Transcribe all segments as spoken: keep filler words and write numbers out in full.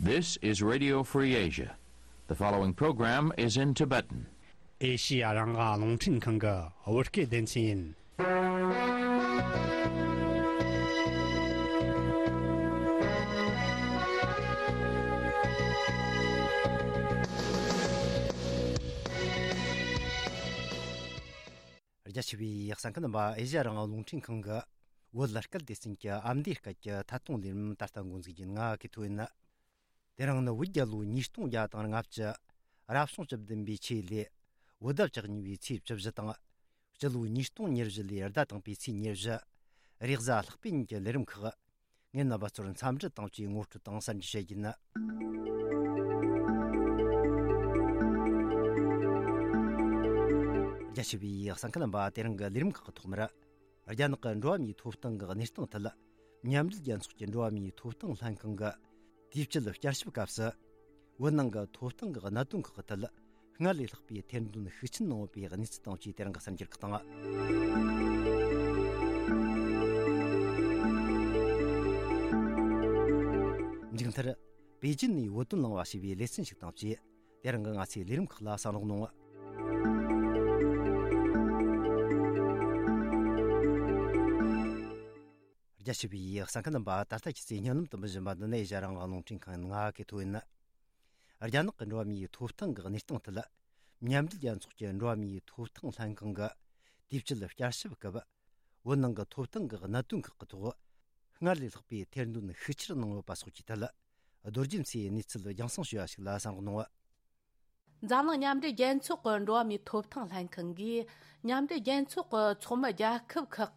This is Radio Free Asia. The following program is in Tibetan. ཨེ་ཤི་ཡ་རང་དབང་རླུང་འཕྲིན་ཁང་གི་བོད་སྐད་སྡེ་ཚན་ཡིན། རྒྱ་ཆེ་བའི་གསན་མཁན་རྣམ་པ། ཨེ་ཤི་ཡ་རང་དབང་རླུང་འཕྲིན་ཁང་གི་བོད་སྐད་སྡེ་ཚན་གྱི་ཨ་མདོའི་སྐད་ཀྱི་ཐད་གཏོང་ལས་རིམ་ད་ལྟ་འགོ་འཛུགས་ཀྱི་ང་གི་ཐོ་ཡིན། དེ་རིང་ནི་བོད་རྒྱལ་ལོ་ཉིས་སྟོང་བརྒྱ་དང་ལྔ་བཅུ། རབ་བྱུང་བཅུ་བདུན་པའི་ཆོས་ལོའི་བོད་ཟླ་བཅུ་གཉིས་པའི་ཚེས་བཅུ་བཞི་དང་། སྤྱི་ལོ་ཉིས་སྟོང་ཉེར་བཞི་ལོའི་ཟླ་དང་པོའི་ཚེས་ཉེར་བཞི། རེས་གཟའ་ལྷག་པའི་ཉིན་གྱི་ལས་རིམ་ཁག་ངས་རྣམ་པ་ཚོར་འཚམས་འདྲི་དང་བཅས་ངོ་སྤྲོད་དང་གསར་འགྱུར་བཤད་རྒྱུ་ཡིན། རྒྱ་ཆེ་བའི་གསན་མཁན་རྣམ་པ། དེ་རིང་གི་ལས་རིམ་ཁག་གི་ཐོག་མར། རྒྱ་ནག་གི་འགྲོ་བ་མིའི་ཐོབ་ཐང་གི་གནས་སྟངས་ཐད། མཉམ་འབྲེལ་རྒྱལ་ཚོགས་ཀྱི་འགྲོ་བ་མིའི་ཐོབ་ཐང་ལྷན་ཁང་གི་དུས་བཅད་བསྐྱར་ཞིབ་སྐབས་སུ། བོད་ནང་གི་ཐོབ་ཐང་གི་གནད་དོན་ཁག་གི་ཐད། སྔར་ལས་ལྷག་པའི་ཐེར་འདོན་ཤུགས་ཆེན་གནང་ཡོད་པའི་གནས་ཚུལ་དང་བཅས་དེ་རིང་གི་གསར་འགྱུར་ཁག་དང་། མཇུག་མཐར། པེ་ཅིན་ནས་བོད་དོན་གླེང་བ་ཞེས་པའི་ལེ་ཚན་ཞིག་དང་བཅས། དེ་རིང་གི་ང་ཚོའི་ལས་རིམ་ཁག་ལ་གསན་རོགས་གནང་། རྒྱ་ཆེ་བའི་གསན་མཁན་རྣམ་པ། ད་ལྟ་ཁྱེད་ཚོས་སྙན་ལམ་དུ་འབུལ་བཞིན་པ་འདི་ནི་ཨེ་ཤ་ཡ་རང་དབང་རླུང་འཕྲིན་ཁང་ཡིན། ང་གི་ཐོ་ཡིན། རྒྱ་ནག་གི་འགྲོ་བ་མིའི་ཐོབ་ཐང་གི་གནས་སྟངས་ཐད། མཉམ་འབྲེལ་རྒྱལ་ཚོགས་ཀྱི་འགྲོ་བ་མིའི་ཐོབ་ཐང་ལྷན་ཁང་གི་དུས་བཅད་བསྐྱར་ཞིབ་སྐབས། བོད་ནང་གི་ཐོབ་ཐང་གི་གནད་དོན་ཁག་གི་ཐོག་སྔར་ལས་ལྷག་པའི་ཐེར་འདོན་ཤུགས་ཆེར་གནང་ཡོད་པ་སོགས་ཀྱི་ཐད། རྡོ་རྗེ་མཚོས་གནས་ཚུལ་རྒྱང་སྲིང་ཞུ་བ་ཞིག་ལ་གསན་རོགས་གནང་། འཛམ་གླིང་མཉམ་འབྲེལ་རྒྱལ་ཚོགས་ཀྱི་འགྲོ་བ་མིའི་ཐོབ་ཐང་ལྷན་ཁང་གིས། མཉམ་འབྲེལ་རྒྱལ་ཚོགས་ཀྱི་ཚོགས་མི་རྒྱལ་ཁབ་ཁག་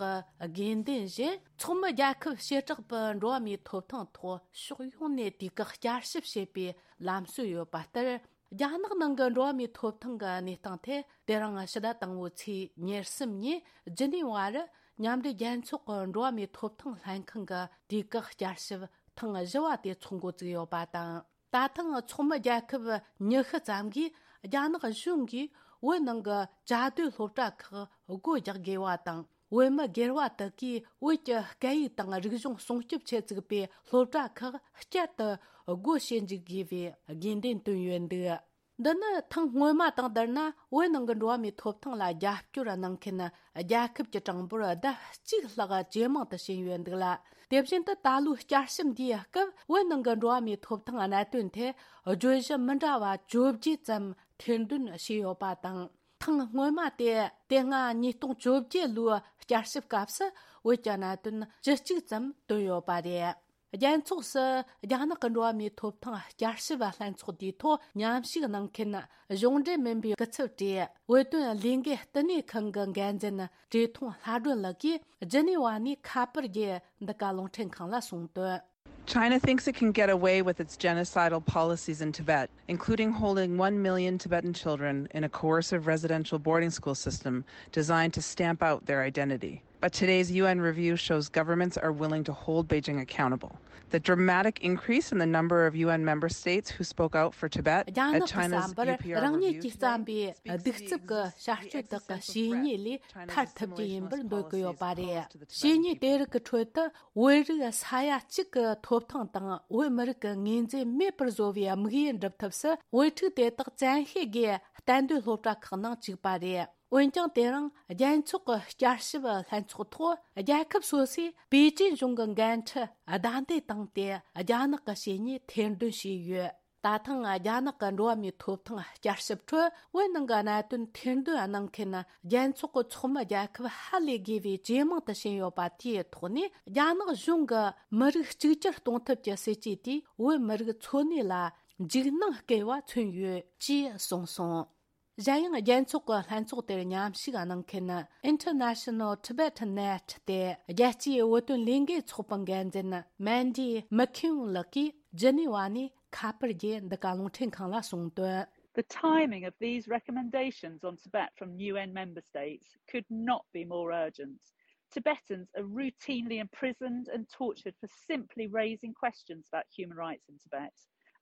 གི་དགོས་འདུན་བཞིན། ཚོགས་མི་རྒྱལ་ཁབ་བྱེ་བྲག་པའི་འགྲོ་བ་མིའི་ཐོབ་ཐང་ཐོག་ཕྱོགས་ཡོངས་ནས་དུས་བཀག་བསྐྱར་ཞིབ་བྱེད་པའི་ལམ་སྲོལ་ཡོད་པ་ལྟར། རྒྱ་ནག་ནང་གི་འགྲོ་བ་མིའི་ཐོབ་ཐང་གི་གནས་སྟངས་ཐད། དེ་རིང་ཕྱི་ཟླ་དང་པོའི་ཚེས་ཉེར་གསུམ་ཉིན་ཇི་ནི་ཝ་རུ་མཉམ་འབྲེལ་རྒྱལ་ཚོགས་ཀྱི་འགྲོ་བ་མིའི་ཐོབ་ཐང་ལྷན་ཁང་གི་དུས་བཀག་བསྐྱར་ཞིབ་ཐེངས་བཞི་བ་དེ་ཚོགས་འགོ་བཙུགས་ཡོད་པ་དང་། ད་ཐེངས་ཚོགས་མི་རྒྱལ་ཁབ་ཉི་ཤུ་ཙམ་གྱིས་རྒྱ་ནག་གཞུང་གིས་བོད་ནང་གི་བཅའ་སྡོད་སློབ་གྲྭ་ཁག་སྒོ་རྒྱག་དགོས་པ་དང་། བོད་མི་སྒེར་བ་དག་གིས་བོད་ཀྱི་སྐད་ཡིག་དང་རིག་གཞུང་སྲུང་སྐྱོབ་ཆེད་བཙུགས་པའི་སློབ་གྲྭ་ཁག་བསྐྱར་དུ་སྒོ་ཕྱེ་འཇུག་དགོས་པའི་དགོས་འདུན་བཏོན་ཡོད་འདུག། འདི་ནི་ཐེངས་སྔོན་མ་དང་བསྡུར་ན། བོད་ནང་གི་འགྲོ་བ་མིའི་ཐོབ་ཐང་ལ་རྒྱབ་སྐྱོར་གནང་མཁན་རྒྱལ་ཁབ་ཀྱི་གྲངས་འབོར་ལྡབ་གཅིག་ལྷག་ཇེ་མང་དུ་ཕྱིན་ཡོད་འདུག་ལ། དེ་བཞིན་དུ་ད་ལོའི་བསྐྱར་ཞིབ་འདིའི་སྐབས། བོད་ནང་གི་འགྲོ་བ་མིའི་ཐོབ་ཐང་གནད་དོན་ཐད་བརྗོད་གཞི་མི་འདྲ་བ་བཅོ་བརྒྱད་ཙམ་ཐེར་འདོན་བྱས་ཡོད་པ་དང་། ཐེངས་སྔོན་མ་དེ། དེ་སྔ་ཉིས་སྟོང་བཅོ་བརྒྱད་ལོའི་བསྐྱར་ཞིབ་སྐབས་སུ་བོད་ཀྱི་གནད་དོན་བཅུ་གཅིག་ཙམ་བཏོན་ཡོད་པ་རེད། རྒྱལ་ཚོགས་སུ་རྒྱ་ནག་གི་འགྲོ་བ་མིའི་ཐོབ་ཐང་བསྐྱར་ཞིབ་ལྷན་ཚོགས་དེའི་ཐོག་མཉམ་ཞུགས་གནང་མཁན་གཞུང་འབྲེལ་མིན་པའི་སྐུ་ཚབ་གྲས། བོད་དོན་ལས་འགུལ་བསྟི་གནས་ཁང་གི་འགན་འཛིན་བཀྲས་མཐོང་ལྷ་སྒྲོན་ལགས་ཀྱིས་ཇི་ནི་ཝ་ནས་ཁ་པར་བརྒྱུད་འདི་ག་རླུང་འཕྲིན་ཁང་ལ་གསུངས་དོན། China thinks it can get away with its genocidal policies in Tibet, including holding one million Tibetan children in a coercive residential boarding school system designed to stamp out their identity. But today's U N review shows governments are willing to hold Beijing accountable. The dramatic increase in the number of U N member states who spoke out for Tibet at China's U P R review today speaks to the existence of threats and suppress China's assimilation policies posed to the Tibetan people. རྒྱ་ནག་གི་བསམ་པར་རང་ཉིད་ཀྱི་བསམ་པའི་གདུག་རྩུབ་ཀྱི་བྱ་སྤྱོད་དག་གི་བཤེས་གཉེན་ལས་ཐར་ཐུབ་རྒྱུ་ཡིན་པར་འདོད་ཀྱི་ཡོད་པ་རེད། བཤེས་གཉེན་དེ་རིགས་ཀྱི་ཁྲོད་དུ་བོད་རིགས་ས་ཡ་གཅིག་གི་ཐོབ་ཐང་དང་བོད་མི་རིགས་ཀྱི་ངོས་འཛིན་མེད་པར་བཟོ་བའི་དམིགས་ཡུལ་འགྲུབ་ཐབས་སུ། བོད་ཕྲུག་དེ་དག་བཙན་ཤེད་ཀྱིས་གཏན་སྡོད་སློབ་གྲྭ་ཁག་ནང་བཅུག་པ་རེད། འོན་ཀྱང་། དེ་རིང་རྒྱལ་ཚོགས་ཀྱི་བསྐྱར་ཞིབ་ལྷན་ཚོགས་ཐོག་རྒྱལ་ཁབ་སོ་སོས་པེ་ཅིན་གཞུང་གི་འགན་འཁྲི་བདའ་འདེད་བཏང་སྟེ། རྒྱ་ནག་གི་བྱས་ཉེས་ཐེར་འདོན་བྱས་ཡོད། ད་ཐེངས་རྒྱ་ནག་གི་འགྲོ་བ་མིའི་ཐོབ་ཐང་བསྐྱར་ཞིབ་ཁྲོད། བོད་ནང་གི་གནད་དོན་ཐེར་འདོན་གནང་མཁན་རྒྱལ་ཚོགས་ཀྱི་ཚོགས་མི་རྒྱལ་ཁབ་ཧ་ལས་དགོས་པའི་ཇེ་མང་དུ་ཕྱིན་ཡོད་པ་དེའི་ཐོག་ནས། རྒྱ་ནག་གཞུང་གི་མི་རིགས་གཅིག་གྱུར་གཏོང་ཐབས་ཀྱི་སྲིད་ཇུས་དེས་བོད་མི་རིགས་འཚོ་གནས་ལ་འཇིགས་སྣང་སྐུལ་བ་མཚོན་ཡོད་ཅེས་གསུངས་སོང་། གཞན་ཡང་། རྒྱལ་ཚོགས་ཀྱི་ལྷན་ཚོགས་དེར་མཉམ་ཞུགས་གནང་མཁན་International Tibetan Net སྟེ། རྒྱལ་སྤྱིའི་བོད་དོན་ལས་འགུལ་ཚོགས་པའི་འགན་འཛིན་Mandy McKeown ལགས་ཀྱིས་ཇི་ནི་ཝ་ནས་ཁ་པར་བརྒྱུད་འདི་ག་རླུང་འཕྲིན་ཁང་ལ་གསུངས་དོན། The timing of these recommendations on Tibet from U N member states could not be more urgent. Tibetans are routinely imprisoned and tortured for simply raising questions about human rights in Tibet.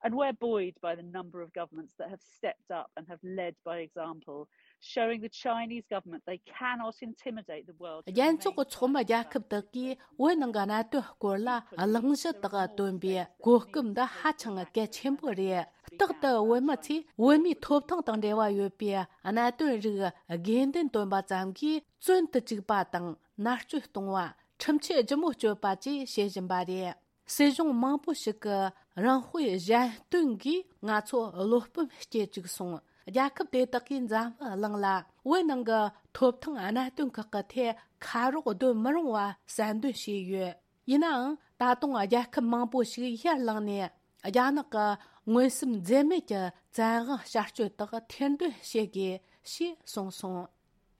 And we're buoyed by the number of governments that have stepped up and have led by example showing the Chinese government they cannot intimidate the world. རྒྱལ་ཚོགས་ཀྱི་ཚོགས་མི་རྒྱལ་ཁབ་དག་གིས་བོད་ནང་གི་གནད་དོན་སྐོར་ལ་གླེང་གཞི་དག་བཏོན་པའི་གོ་སྐབས་འདི་ཧ་ཅང་གལ་ཆེན་པོ་རེད། རྟག་ཏུ་བོད་མི་ཚོས་བོད་མིའི་ཐོབ་ཐང་དང་འབྲེལ་བ་ཡོད་པའི་གནད་དོན་རིགས་དགོས་འདུན་བཏོན་པ་ཙམ་གྱིས་བཙོན་དུ་བཅུག་པ་དང་མནར་གཅོད་གཏོང་བ། ཁྲིམས་ཆད་ལྗིད་མོ་གཅོད་པ་བཅས་བྱེད་བཞིན་པ་རེད། སྲིད་གཞུང་མང་པོ་ཞིག་གི་རང་དཔེ་གཞན་སྟོན་གྱིས་ང་ཚོ་བློ་སྤོབས་སྐྱེ་བཅུག་སོང་། རྒྱལ་ཁབ་དེ་དག་གིས་འཛམ་བུ་གླིང་ལ་བོད་ནང་གི་ཐོབ་ཐང་གནད་དོན་ཁག་གི་ཐད་ཁ་རོག་སྡོད་མི་རུང་བ་གསལ་འདོན་བྱས་ཡོད། ཡིན་ནའང་ད་དུང་རྒྱལ་ཁབ་མང་པོ་ཞིག་ཡར་ལངས་ནས་རྒྱ་ནག་གི་མངོན་སུམ་འཛེམ་མེད་ཀྱི་བཙན་དབང་བསྐྱར་གཅོད་དག་ཐེར་འདོན་བྱེད་དགོས་ཞེས་གསུངས་སོང་།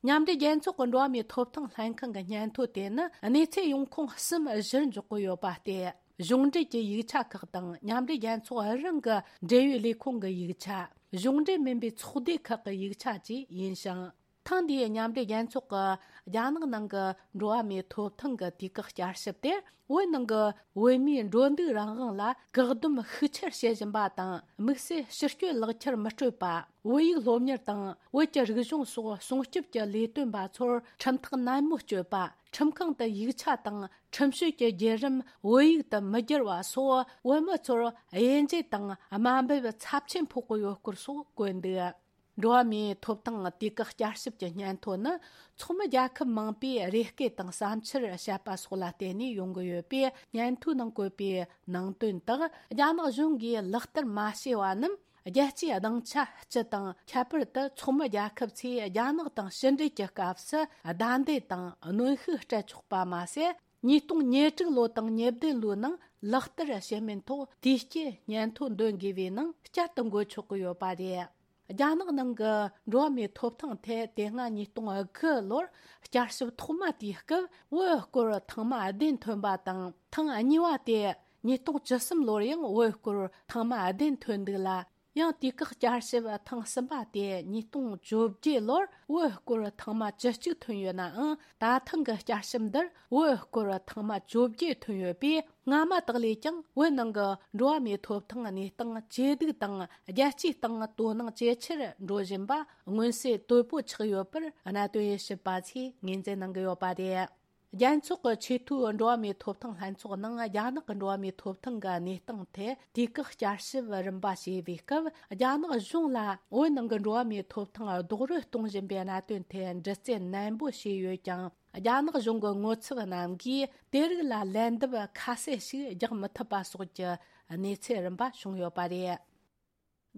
མཉམ་འབྲེལ་རྒྱལ་ཚོགས་ཀྱི་འགྲོ་བ་མིའི་ཐོབ་ཐང་ལྷན་ཁང་གི་སྙན་ཐོ་དེ་ནི་གནས་ཚད་ཡོང་ཁུངས་གསུམ་བཞིར་འཇོག་གི་ཡོད་པ་སྟེ། གཞུང་འབྲེལ་གྱི་ཡིག་ཆ་ཁག་དང་མཉམ་འབྲེལ་རྒྱལ་ཚོགས་རང་གི་འབྲེལ་ཡོད་ལས་ཁུངས་ཀྱི་ཡིག་ཆ། གཞུང་འབྲེལ་མིན་པའི་ཚོགས་སྡེ་ཁག་གི་ཡིག་ཆ་བཅས་ཡིན་ཞིང་། ཐེངས་འདིའི་མཉམ་འབྲེལ་རྒྱལ་ཚོགས་ཀྱི་རྒྱ་ནག་ནང་གི་འགྲོ་བ་མིའི་ཐོབ་ཐང་གི་དུས་བཀག་བསྐྱར་ཞིབ་དེ། བོད་ནང་གི་བོད་མིའི་འགྲོ་འདུག་རང་དབང་ལ་བཀག་སྡོམ་ཤུགས་ཆེར་བྱེད་བཞིན་པ་དང་། དམིགས་བསལ་ཕྱི་སྐྱོད་ལག་ཁྱེར་མི་སྤྲོད་པ། བོད་ཡིག་སློབ་གཉེར་དང་བོད་ཀྱི་རིག་གཞུང་སོགས་སྲུང་སྐྱོབ་ཀྱི་ལས་དོན་པ་ཚོར་ཁྲིམས་ཐག་ནན་མོ་གཅོད་པ། ཁྲིམས་ཁང་དུ་ཡིག་ཆ་དང་ཁྲིམས་གཅོད་ཀྱི་བརྒྱུད་རིམ་བོད་ཡིག་ཏུ་མི་བསྒྱུར་བ་སོགས། བོད་མི་ཚོར་དབྱེ་འབྱེད་དང་དམའ་འབེབས་ཚབས་ཆེན་ཕོག་གི་ཡོད་སྐོར་སོགས་བཀོད་འདུག། འགྲོ་བ་མིའི་ཐོབ་ཐང་དུས་བཀག་བསྐྱར་ཞིབ་ཀྱི་སྙན་ཐོ་ནི། ཚོགས་མི་རྒྱལ་ཁབ་མང་པོས་རེ་སྐུལ་དང་བསམ་འཆར་བཤད་པ་སོགས་ལ་བརྟེན་ནས་ཡོང་གི་ཡོད་པས། སྙན་ཐོའི་ནང་བཀོད་པའི་ནང་དོན་དག་རྒྱ་ནག་གཞུང་གིས་ལག་བསྟར་མ་བྱས་པ་རྣམས། རྒྱལ་སྤྱིའི་སྡིངས་ཆ་སྤྱི་དང་། ཁྱད་པར་དུ་ཚོགས་མི་རྒྱལ་ཁབ་ཚོས་རྒྱ་ནག་དང་ཕྱི་འབྲེལ་གྱི་སྐབས་སུ་བརྡ་འདེད་དང་གནོན་ཤུགས་སྤྲད་ཆོག་པ་མ་ཟད། ཉིས་སྟོང་ཉེར་དྲུག་ལོ་དང་ཉེར་བདུན་ལོའི་ནང་ལག་བསྟར་བྱེད་མིན་ཐོག་དུས་བསྐྱོད་སྙན་ཐོ་འདོན་དགོས་པའི་ནང་བསྐྱར་དུ་འགོད་ཆོག་གི་ཡོད་པ་རེད། རྒྱ་ནག་ནང་གི་འགྲོ་བ་མིའི་ཐོབ་ཐང་ཐད་དེ་སྔ་ཉིས་སྟོང་དགུ་ལོར་བསྐྱར་ཞིབ་ཐོག་མ་དེའི་སྐབས་བོད་སྐོར་ཐེངས་མ་བདུན་ཐོན་པ་དང་། ཐེངས་གཉིས་པ་དེ་ཉིས་སྟོང་བཅུ་གསུམ་ལོར་ཡང་བོད་སྐོར་ཐེངས་མ་བདུན་ཐོན་འདུག་ལ། ཡང་དུས་བཀག་བསྐྱར་ཞིབ་ཐེངས་གསུམ་པ་དེ་ཉིས་སྟོང་བཅོ་བརྒྱད་ལོར་བོད་སྐོར་ཐེངས་མ་བཅུ་གཅིག་ཐོན་ཡོད་ནའང་། ད་ཐེངས་ཀྱི་བསྐྱར་ཞིབ་འདིར་བོད་སྐོར་ཐེངས་མ་བཅོ་བརྒྱད་ཐོན་ཡོད་པས། སྔ་མ་དག་ལས་ཀྱང་བོད་ནང་གི་འགྲོ་བ་མིའི་ཐོབ་ཐང་གནས་སྟངས་ཇེ་སྡུག་དང་། རྒྱལ་སྤྱིའི་སྟེང་དོ་སྣང་ཇེ་ཆེར་འགྲོ་བཞིན་པ་མངོན་གསལ་དོད་པོ་ཆགས་ཡོད་པར་གནད་དོན་དབྱེ་ཞིབ་པ་ཚོས་ངོས་འཛིན་གནང་གི་ཡོད་པ་རེད། རྒྱལ་ཚོགས་ཀྱི་ཆེས་མཐོའི་འགྲོ་བ་མིའི་ཐོབ་ཐང་ལྷན་ཚོགས་ནང་རྒྱ་ནག་གི་འགྲོ་བ་མིའི་ཐོབ་ཐང་གི་གནས་སྟངས་ཐད་དུས་བཀག་བསྐྱར་ཞིབ་རིམ་པ་བྱས་པའི་སྐབས། རྒྱ་ནག་གཞུང་ལ་བོད་ནང་གི་འགྲོ་བ་མིའི་ཐོབ་ཐང་རྡོག་རོལ་གཏོང་བཞིན་པའི་གནད་དོན་ཐད་འདྲི་རྩད་ནན་པོ་བྱས་ཡོད་ཀྱང་། རྒྱ་ནག་གཞུང་གི་ངོ་ཚབ་རྣམས་ཀྱིས་དེ་རིགས་ལ་ལན་འདེབས་ཁ་གསལ་ཞིག་རྒྱག་མི་ཐུབ་པ་སོགས་ཀྱི་གནས་ཚུལ་རིམ་པ་བྱུང་ཡོད་པ་རེད།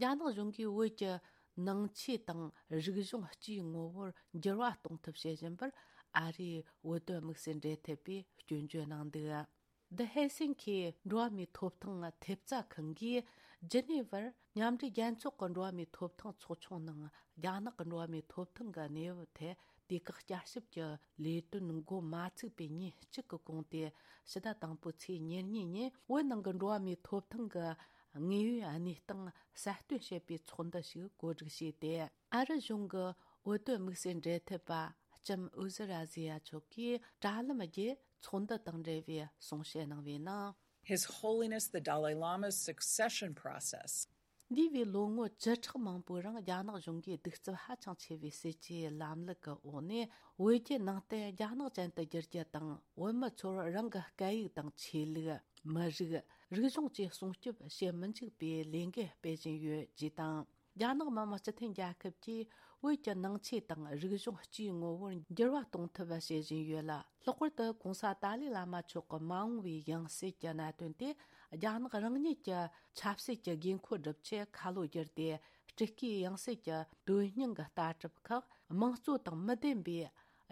རྒྱ་ནག་གཞུང་གིས་བོད་ཀྱི་ནང་ཆོས་དང་རིག་གཞུང་སྤྱིའི་ངོ་བོར་འགྱུར་བ་གཏོང་ཐབས་བྱེད་བཞིན་པར། ཨ་རིའི་བོད་དོན་དམིགས་བསལ་འབྲེལ་མཐུད་པས་སྐྱོན་བརྗོད་གནང་འདུག། The Helsinki འགྲོ་བ་མིའི་ཐོབ་ཐང་ཐེབས་རྩ་ཁང་གིས་ཇི་ནི་ཝར་མཉམ་འབྲེལ་རྒྱལ་ཚོགས་ཀྱི་འགྲོ་བ་མིའི་ཐོབ་ཐང་ཚོགས་ཆུང་ནང་རྒྱ་ནག་གི་འགྲོ་བ་མིའི་ཐོབ་ཐང་གི་གནས་བབ་ཐད་དུས་བཀག་བསྐྱར་ཞིབ་ཀྱི་ལས་དོན་འགོ་མ་ཚུགས་པའི་ཉིན་གཅིག་གི་གོང་དུ། ཕྱི་ཟླ་དང་པོའི་ཚེས་ཉེར་གཉིས་ཉིན་བོད་ནང་གི་འགྲོ་བ་མིའི་ཐོབ་ཐང་གི་དངོས་ཡོད་གནས་སྟངས་གསལ་སྟོན་བྱེད་པའི་ཚོགས་འདུ་ཞིག་གོ་སྒྲིག་བྱས་ཏེ། ཨ་རི་གཞུང་གི་བོད་དོན་དམིགས་བསལ་འབྲེལ་མཐུད་པ་ལྕམ་ཨུ་ཟི་ར་ཟི་ཡ་མཆོག་གིས་དྲ་ལམ་བརྒྱུད་ཚོགས་འདུ་དང་འབྲེལ་བའི་གསུང་བཤད་གནང་བའི་ནང་། His Holiness the Dalai Lama's succession process. འདས་པའི་ལོ་ངོ་བཅུ་ཕྲག་མང་པོའི་རིང་རྒྱ་ནག་གཞུང་གིས་གདུག་རྩུབ་ཧ་ཅང་ཆེ་བའི་སྲིད་ཇུས་ལམ་ལུགས་ཀྱི་འོག་ནས། བོད་བརྒྱུད་ནང་བསྟན་རྒྱ་ནག་ཅན་དུ་བསྒྱུར་རྒྱུ་དང་། བོད་མི་ཚོར་རང་གི་སྐད་ཡིག་དང་ཆོས་ལུགས། མི་རིགས། རིག་གཞུང་བཅས་སྲུང་སྐྱོབ་བྱེད་མི་འཇུག་པའི་ལས་འགུལ་སྤེལ་བཞིན་ཡོད་ཅེས་དང་། རྒྱ་ནག་མི་དམངས་སྤྱི་མཐུན་རྒྱལ་ཁབ་ཀྱིས་བོད་ཀྱི་ནང་ཆོས་དང་རིག་གཞུང་སྤྱིའི་ངོ་བོར་འགྱུར་བ་གཏོང་ཐབས་བྱེད་བཞིན་ཡོད་ལ། ལྷག་པར་དུ་༸གོང་ས་ཏཱ་ལའི་བླ་མ་མཆོག་གི་མ་འོངས་པའི་ཡང་སྲིད་ཀྱི་གནད་དོན་དེ། རྒྱ་ནག་རང་ཉིད་ཀྱི་ཆབ་སྲིད་ཀྱི་དགོས་མཁོ་སྒྲུབ་ཆེད་ཁ་ལོ་བསྒྱུར་ཏེ། སྤྲུལ་སྐུའི་ཡང་སྲིད་ཀྱི་དོན་སྙིང་གི་ལྟ་གྲུབ་ཁག་དམངས་གཙོ་དང་མི་ལྡན་པའི་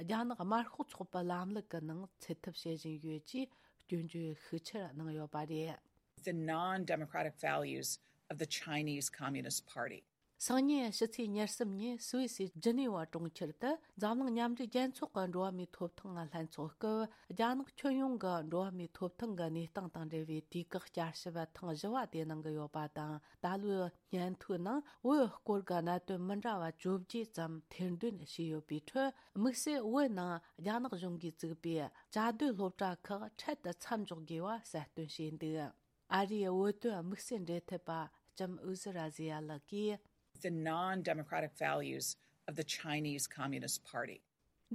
རྒྱ་ནག་དམར་ཤོག་ཚོགས་པའི་ལམ་ལུགས་ཀྱི་ནང་ཚུད་ཐབས་བྱེད་བཞིན་ཡོད་ཅེས་སྐྱོན་བརྗོད་ཤུགས་ཆེར་གནང་ཡོད་པ་རེད། The non-democratic values of the Chinese Communist Party. སང་ཉིན་ཕྱི་ཚེས་ཉེར་གསུམ་ཉིན་སུད་སིའི་ཇི་ནི་ཝ་གྲོང་ཁྱེར་དུ་འཛམ་གླིང་མཉམ་འབྲེལ་རྒྱལ་ཚོགས་ཀྱི་འགྲོ་བ་མིའི་ཐོབ་ཐང་ལྷན་ཚོགས་སྐབས། རྒྱ་ནག་ཁྱོན་ཡོངས་ཀྱི་འགྲོ་བ་མིའི་ཐོབ་ཐང་གི་གནས་སྟངས་དང་འབྲེལ་བའི་དུས་བཀག་བསྐྱར་ཞིབ་ཐེངས་བཞི་བ་དེ་གནང་གི་ཡོད་པ་དང་། ད་ལོའི་སྙན་ཐོའི་ནང་བོད་སྐོར་གྱི་གནད་དོན་མི་འདྲ་བ་བཅོ་བརྒྱད་ཙམ་ཐེར་འདོན་བྱས་ཡོད་པའི་ཁྲོད། དམིགས་བསལ་བོད་ནང་རྒྱ་ནག་གཞུང་གིས་བཙུགས་པའི་བཅའ་སྡོད་སློབ་གྲྭ་ཁག་འཕྲལ་དུ་མཚམས་འཇོག་དགོས་པ་གསལ་སྟོན་བྱས་འདུག། ཨ་རིའི་བོད་དོན་དམིགས་བསལ་འབྲེལ་མཐུད་པ་ལྕམ་ཨུ་ཟི་ར་ཟི་ཡ་ལགས་ཀྱིས། The non-democratic values of the Chinese Communist Party.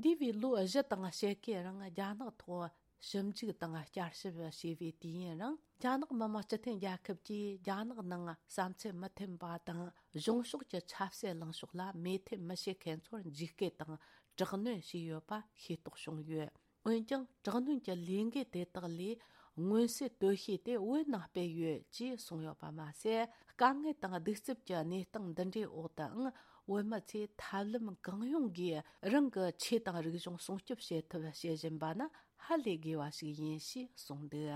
འདས་པའི་ལོ་བཞི་དང་ཕྱེད་ཀའི་རིང་རྒྱ་ནག་ཐོག་ཞིབ་འཇུག་དང་བསྐྱར་ཞིབ་བྱས་པའི་དུས་ཡུན་རིང་། རྒྱ་ནག་མི་དམངས་སྤྱི་མཐུན་རྒྱལ་ཁབ་ཀྱིས་རྒྱ་ནག་ནང་བསམ་ཚུལ་མི་མཐུན་པ་དང་གཞུང་ཕྱོགས་ཀྱི་ཆབ་སྲིད་ལངས་ཕྱོགས་ལ་མོས་མཐུན་མི་བྱེད་མཁན་ཚོར་འཇིགས་སྐུལ་དང་དྲག་གནོན་བྱས་ཡོད་པ་ཤེས་རྟོགས་བྱུང་ཡོད། འོན་ཀྱང་དྲག་གནོན་གྱི་ལས་འགུལ་དེ་དག་ལས་མངོན་གསལ་དོད་ཤོས་དེ་བོད་ནང་སྤེལ་ཡོད་ཅེས་གསུངས་ཡོད་པ་མ་ཟད། དཀའ་ངལ་དང་གདུག་རྩུབ་ཀྱི་གནས་སྟངས་འདི་འདྲའི་འོག་ཏུའང་བོད་མི་ཚོས་ཐབས་ལམ་གང་ཡོང་གིས་རང་གི་ཆོས་དང་རིག་གཞུང་སྲུང་སྐྱོབ་བྱེད་ཐབས་བྱེད་བཞིན་པ་ནི་ཧ་ལས་དགོས་པ་ཞིག་ཡིན་ཞེས་གསུངས་འདུག་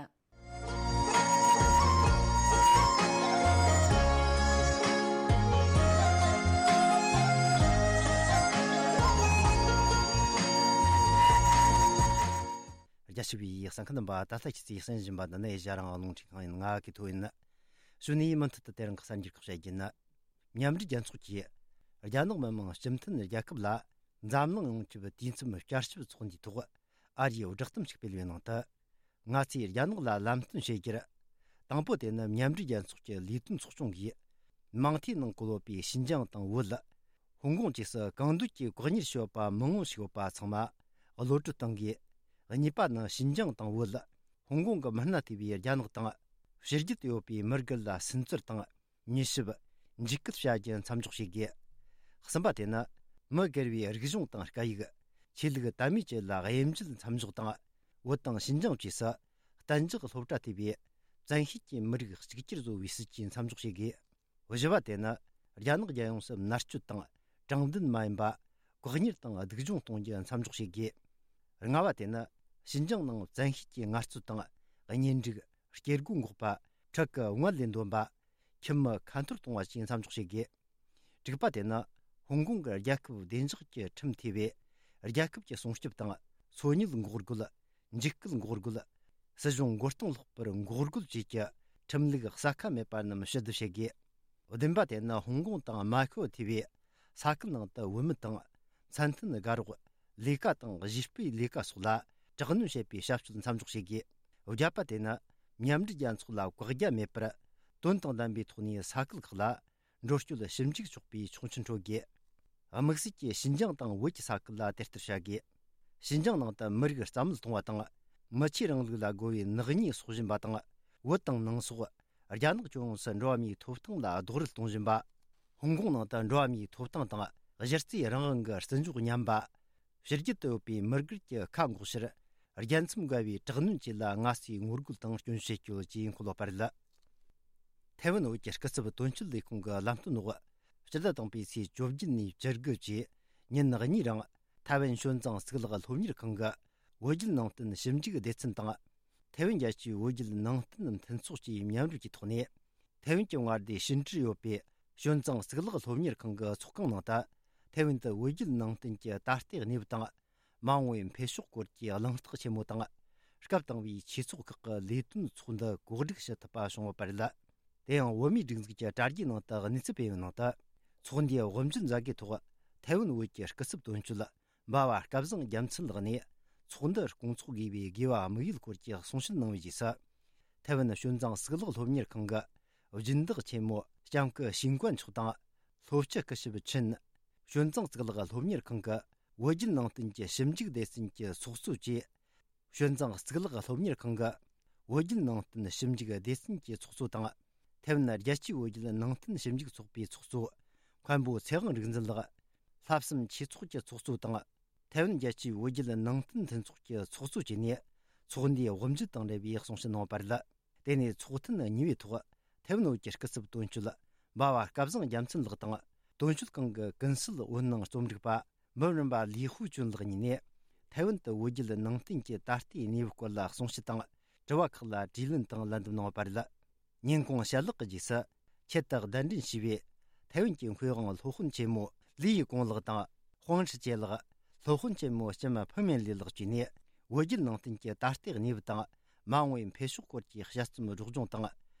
རྒྱ་ཆེ་བའི་གསན་མཁན་རྣམ་པ། ད་ལྟ་ཁྱེད་ཚོས་གསན་བཞིན་པ་འདི་ནི་ཨེ་ཤ་ཡ་རང་དབང་རླུང་འཕྲིན་ཁང་ཡིན། ང་གི་ཐོ་ཡིན། གཞུག་ནས་མུ་མཐུད་དུ་དེ་རིང་གི་གསར་འགྱུར་ཁག་བཤད་རྒྱུ་ཡིན། མཉམ་འབྲེལ་རྒྱལ་ཚོགས་ཀྱིས་རྒྱ་ནག་མི་དམངས་སྤྱི་མཐུན་རྒྱལ་ཁབ་ལ་འཛམ་གླིང་ཡོངས་ཀྱི་དུས་མཚམས་བསྐྱར་ཞིབ་ཚོགས་འདུའི་ཐོག་ཨ་རིའི་བསྒྲགས་གཏམ་ཞིག་སྤེལ་བའི་ནང་དུ། ང་ཚོས་རྒྱ་ནག་ལ་ལམ་སྟོན་བྱེད་རྒྱུར། དང་པོ་དེ་ནི་མཉམ་འབྲེལ་རྒྱལ་ཚོགས་ཀྱི་ལས་དོན་ཚོགས་ཆུང་གིས། མང་མཐའི་ནང་བཀོད་ཡོད་པའི་ཞིན་ཅང་དང་བོད། ཧོང་ཀོང་བཅས་སུ་གང་འདོད་ཀྱིས་བཀག་ཉར་བྱས་ཡོད་པ་མང་བོ་ཞིག་ཡོད་པ་ཚང་མ་གློད་བཀྲོལ་གཏང་དགོས། གཉིས་པ་ནི་ཞིན་ཅང་དང་བོད། ཧོང་ཀོང་གི་མི་སྣ་ཐེ་བའི་རྒྱ་ནག་དང་། ཕྱི་རྒྱལ་དུ་ཡོད་པའི་མི་སྒེར་ལ་སུན་གཙེར་དང་། མྱུལ་ཞིབ། འཇིགས་སྐུལ་བྱ་རྒྱུ་མཚམས་འཇོག་བྱེད་དགོས། གསུམ་པ་དེ་ནི་མི་སྒེར་བའི་རིག་གཞུང་དང་སྐད་ཡིག་ཆོས་ལུགས་དད་མོས་བཅས་ལ་དབྱེ་འབྱེད་མཚམས་འཇོག་དང་། བོད་དང་ཞིན་ཅང་བཅས་སུ་གཏན་འཇགས་སློབ་གྲྭ་ཐེ་བའི་བཙན་ཤེད་ཀྱིས་མི་རིགས་གཅིག་གྱུར་བཟོ་བའི་སྲིད་ཇུས་མཚམས་འཇོག་བྱེད་དགོས། བཞི་པ་དེ་ནི་རྒྱ་ནག་རྒྱལ་ཡོངས་སུ་མནར་གཅོད་དང་དྲང་བདེན་མ་ཡིན་པ། བཀག་ཉར་དང་སྡུག་སྦྱོང་གཏོང་རྒྱུ་མཚམས་འཇོག་བྱེད་དགོས། ལྔ་པ་དེ་ནི་ཞིན་ཅང་ནང་བཙན་ཤེད་ཀྱིས་ངལ་རྩོལ་དང་གཉེན་སྒྲིག་སྐྱེ་སྒོ་འགོག་པ། ཕྲུ་གུ་ངལ་ལས་འདོན་པ། ཁྱིམ་མི་ཁ་འཐོར་གཏོང་བ་བཅས་མཚམས་འཇོག་བྱེད་དགོས། དྲུག་པ་དེ་ནི་ཧོང་ཀོང་གི་རྒྱལ་ཁབ་བདེ་འཇགས་ཀྱི་ཁྲིམས་ཐེ་བའི་རྒྱལ་ཁབ་ཀྱི་སྲུང་སྐྱོབ་དང་འཚོ་གནས་འགོག་རྒོལ། འཇིགས་སྐུལ་འགོག་རྒོལ། སྲིད་གཞུང་མགོ་རྟིང་སློག་པར་འགོག་རྒོལ་བཅས་ཀྱི་ཁྲིམས་ལུགས་གསལ་ཁ་མེད་པ་རྣམས་ཕྱིར་བསྡུ་བྱེད་དགོས། བདུན་པ་དེ་ནི་ཧོང་ཀོང་དང་མ་ཁོ་ཐེ་བའི་ས་ཁུལ་ནང་དུ་བུད་མེད་དང་མཚན་མཐུན་དགའ་རོགས། ལས་ཀ་དང་གཞས་སྤེལ་ལས་ཀ་སོགས་ལ་དྲག་གནོན་བྱེད་པའི་བྱ་སྤྱོད་མཚམས་འཇོག་བྱེད་དགོས། བརྒྱད་པ་དེ་ནི་མཉམ་འབྲེལ་རྒྱལ་ཚོགས་ལ་བཀག་རྒྱ་མེད་པར་དོན་དང་ལྡན་པའི་ཐོག་ནས་ས་ཁུལ་ཁག་ལ་འགྲོ་སྐྱོད་ཞིབ་འཇུག་ཆོག་པའི་ཆོག་མཆན་སྤྲོད་དགོས། དམིགས་བསལ་གྱིས་ཞིན་ཅང་དང་བོད་ཀྱི་ས་ཁུལ་ལ་དེ་ལྟར་བྱ་དགོས། ཞིན་ཅང་ནང་དུ་མི་རིགས་རྩ་མེད་གཏོང་བ་དང་། མི་ཆོས་རིང་ལུགས་ལ་རྒོལ་བའི་ནག་ཉེས་སྲོག་བཞིན་པ་དང་། བོད་དང་ནང་སོག་རྒྱ་ནག་ལྗོངས་སུ་འགྲོ་བ་མིའི་ཐོབ་ཐང་ལ་རྡོག་རོལ་གཏོང་བཞིན་པ། ཧོང་ཀོང་ནང་དུ་འགྲོ་བ་མིའི་ཐོབ་ཐང་དང་གཞི་རྩའི་རང་དབང་གི་བརྩི་འཇོག་ཉམས་པ། ཕྱི་རྒྱལ་དུ་ཡོད་པའི་མི་སྒེར་གྱི་ཁ་འགོག་ཕྱིར། རྒྱལ་མཚམས་འགལ་བའི་དྲག་གནོན་བཅས་ལ་སྔ་སེ་ངོ་རྒོལ་དང་སྐྱོན་བརྗོད་བྱེད་རྒྱུ་བཅས་འཁོད་ཡོད་པ་རེད། ཐའེ་ཝན་བོད་ཀྱི་སྐུ་ཚབ་དོན་གཅོད་ལས་ཁུངས་ཀྱི་ལམ་སྟོན་འོག་སྤྱི་ཟླ་དང་པོའི་ཚེས་བཅོ་བརྒྱད་ནས་བཅུ་དགུ་བཅས་ཉིན་གཉིས་རིང་ཐའེ་ཝན་བྱོན་ཙང་གཙུག་ལག་སློབ་གཉེར་ཁང་གི་བོད་བརྒྱུད་ནང་བསྟན་ཞིབ་འཇུག་སྡེ་ཚན་དང་། ཐའེ་ཝན་རྒྱལ་སྤྱིའི་བོད་བརྒྱུད་ནང་བསྟན་མཐུན་ཚོགས་ཀྱིས་མཉམ་རུབ་ཀྱི་ཐོག་ནས། ཐའེ་ཝན་གྱི་མངའ་སྡེ་ཞིན་ཀྲི་ཡོད་པའི་བྱོན་ཙང་གཙུག་ལག་སློབ་གཉེར་ཁང་གི་ཚོགས་ཁང་ནང་དུ། ཐའེ་ཝན་དུ་བོད་བརྒྱུད་ནང་བསྟན་གྱི་ད་ལྟའི་གནས་བབ་དང་། མ་འོངས་པའི་འཕེལ་ཕྱོགས་སྐོར་གྱི་གླེང་སྟེགས་ཆེན་མོ་དང་། སྐབས་དང་པོའི་ཆོས་ཚོགས་ཁག་གི་ལས་དོན་ཚོགས་འདུ་གོ་སྒྲིག་བྱེད་ཐུབ་པ་བྱུང་ཡོད་པ་རེད། དེ་ཡང་བོད་མིའི་སྒྲིག་འཛུགས་ཀྱི་དྲ་རྒྱའི་ནང་དུ་གནས་ཚུལ་སྤེལ་བའི་ནང་དུ། ཚོགས་འདུའི་དབུ་འབྱེད་མཛད་སྒོའི་ཐོག་ཐའེ་ཝན་བོད་ཀྱི་སྐུ་ཚབ་དོན་གཅོད་འབའ་བ་སྐལ་བཟང་རྒྱལ་མཚན་ལགས་ནས། ཚོགས་འདུ་སྐོང་ཚོགས་དགོས་པའི་དགོས་པ་དམིགས་ཡུལ་སྐོར་གྱི་གསུང་བཤད་གནང་བའི་རྗེས་སུ། ཐའེ་ཝན་བྱོན་ཙང་གཙུག་ལག་སློབ་གཉེར་ཁང་གི་སྦྱིན་བདག་ཆེན་མོ་ལྕམ་སྐུ་ཞིང་ཀོན་མཆོག་དང་། ལྷོ་སྤྱི་སྐུ་ཞབས་ཆིན། བྱོན་ཙང་གཙུག་ལག་སློབ་གཉེར་ཁང་གི་བོད་བརྒྱུད་ནང་བསྟན་གྱི་ཞིབ་འཇུག་སྡེ་ཚན་གྱི་ཚོགས་གཙོ་བཅས། བྱོན་ཙང་གཙུག་ལག་སློབ་གཉེར་ཁང་གི་བོད་བརྒྱུད་ནང་བསྟན་ཞིབ་འཇུག་སྡེ་ཚན་གྱི་ཚོགས་གཙོ་དང་། ཐའེ་ཝན་རྒྱལ་སྤྱིའི་བོད་བརྒྱུད་ནང་བསྟན་ཞིབ་འཇུག་ཚོགས་པའི་ཚོགས་གཙོ་མཁན་པོ་ཚེ་དབང་རིག་འཛིན་ལགས། ལྷག་བསམ་ཆོས་ཚོགས་ཀྱི་ཚོགས་གཙོ་དང་། ཐའེ་ཝན་རྒྱལ་སྤྱིའི་བོད་བརྒྱུད་ནང་བསྟན་མཐུན་ཚོགས་ཀྱི་ཚོགས་གཙོ་བཅས་ནས་ཚོགས་འདུའི་དབུ་འབྱེད་དང་འབྲེལ་བའི་གསུང་བཤད་གནང་བ་རེད། དེ་ནས་ཚོགས་ཐུན་གཉིས་པའི་ཐོག་ཐའེ་ཝན་བོད་ཀྱི་སྐུ་ཚབ་དོན་གཅོད་འབའ་བ་སྐལ་བཟང་རྒྱལ་མཚན་ལགས་དང་། དོན་གཅོད་ཁང་གི་ཀུན་གསལ་འོད་སྣང་རྩོམ་སྒྲིག་པ་འབུམ་རམས་པ་ལི་ཧུ་ཅུན་ལགས་གཉིས་ནས། ཐའེ་ཝན་དུ་བོད་བརྒྱུད་ནང་བསྟན་གྱི་ད་ལྟའི་གནས་བབ་སྐོར་ལ་གསུང་བཤད་དང་། དྲི་བ་ཁག་ལ་དྲིས་ལན་དང་ལན་འདེབས་གནང་བ་རེད། ཉིན་གུང་ཞལ་ལག་གི་རྗེས་སུ། ཆེད་དུ་གདན་འདྲེན་ཞུས་པའི་ཐའེ་ཝན་གྱི་མཁས་དབང་སློབ་དཔོན་ཆེན་མོ་ལི་ཡི་ཀོང་ལགས་དང་། ཧོང་ཧྲི་ཅེ་ལགས། སློབ་དཔོན་ཆེན་མོ་ལྕམ་ཕུ་མེན་ལི་ལགས་བཅས་ནས། བོད་བརྒྱུད་ནང་བསྟན་གྱི་ད་ལྟའི་གནས་བབ་དང་། མ་འོངས་པའི་འཕེལ་ཕྱོགས་སྐོར་གྱི་དཔྱད་རྩོམ་སྒྲོག་སྦྱོང་དང་།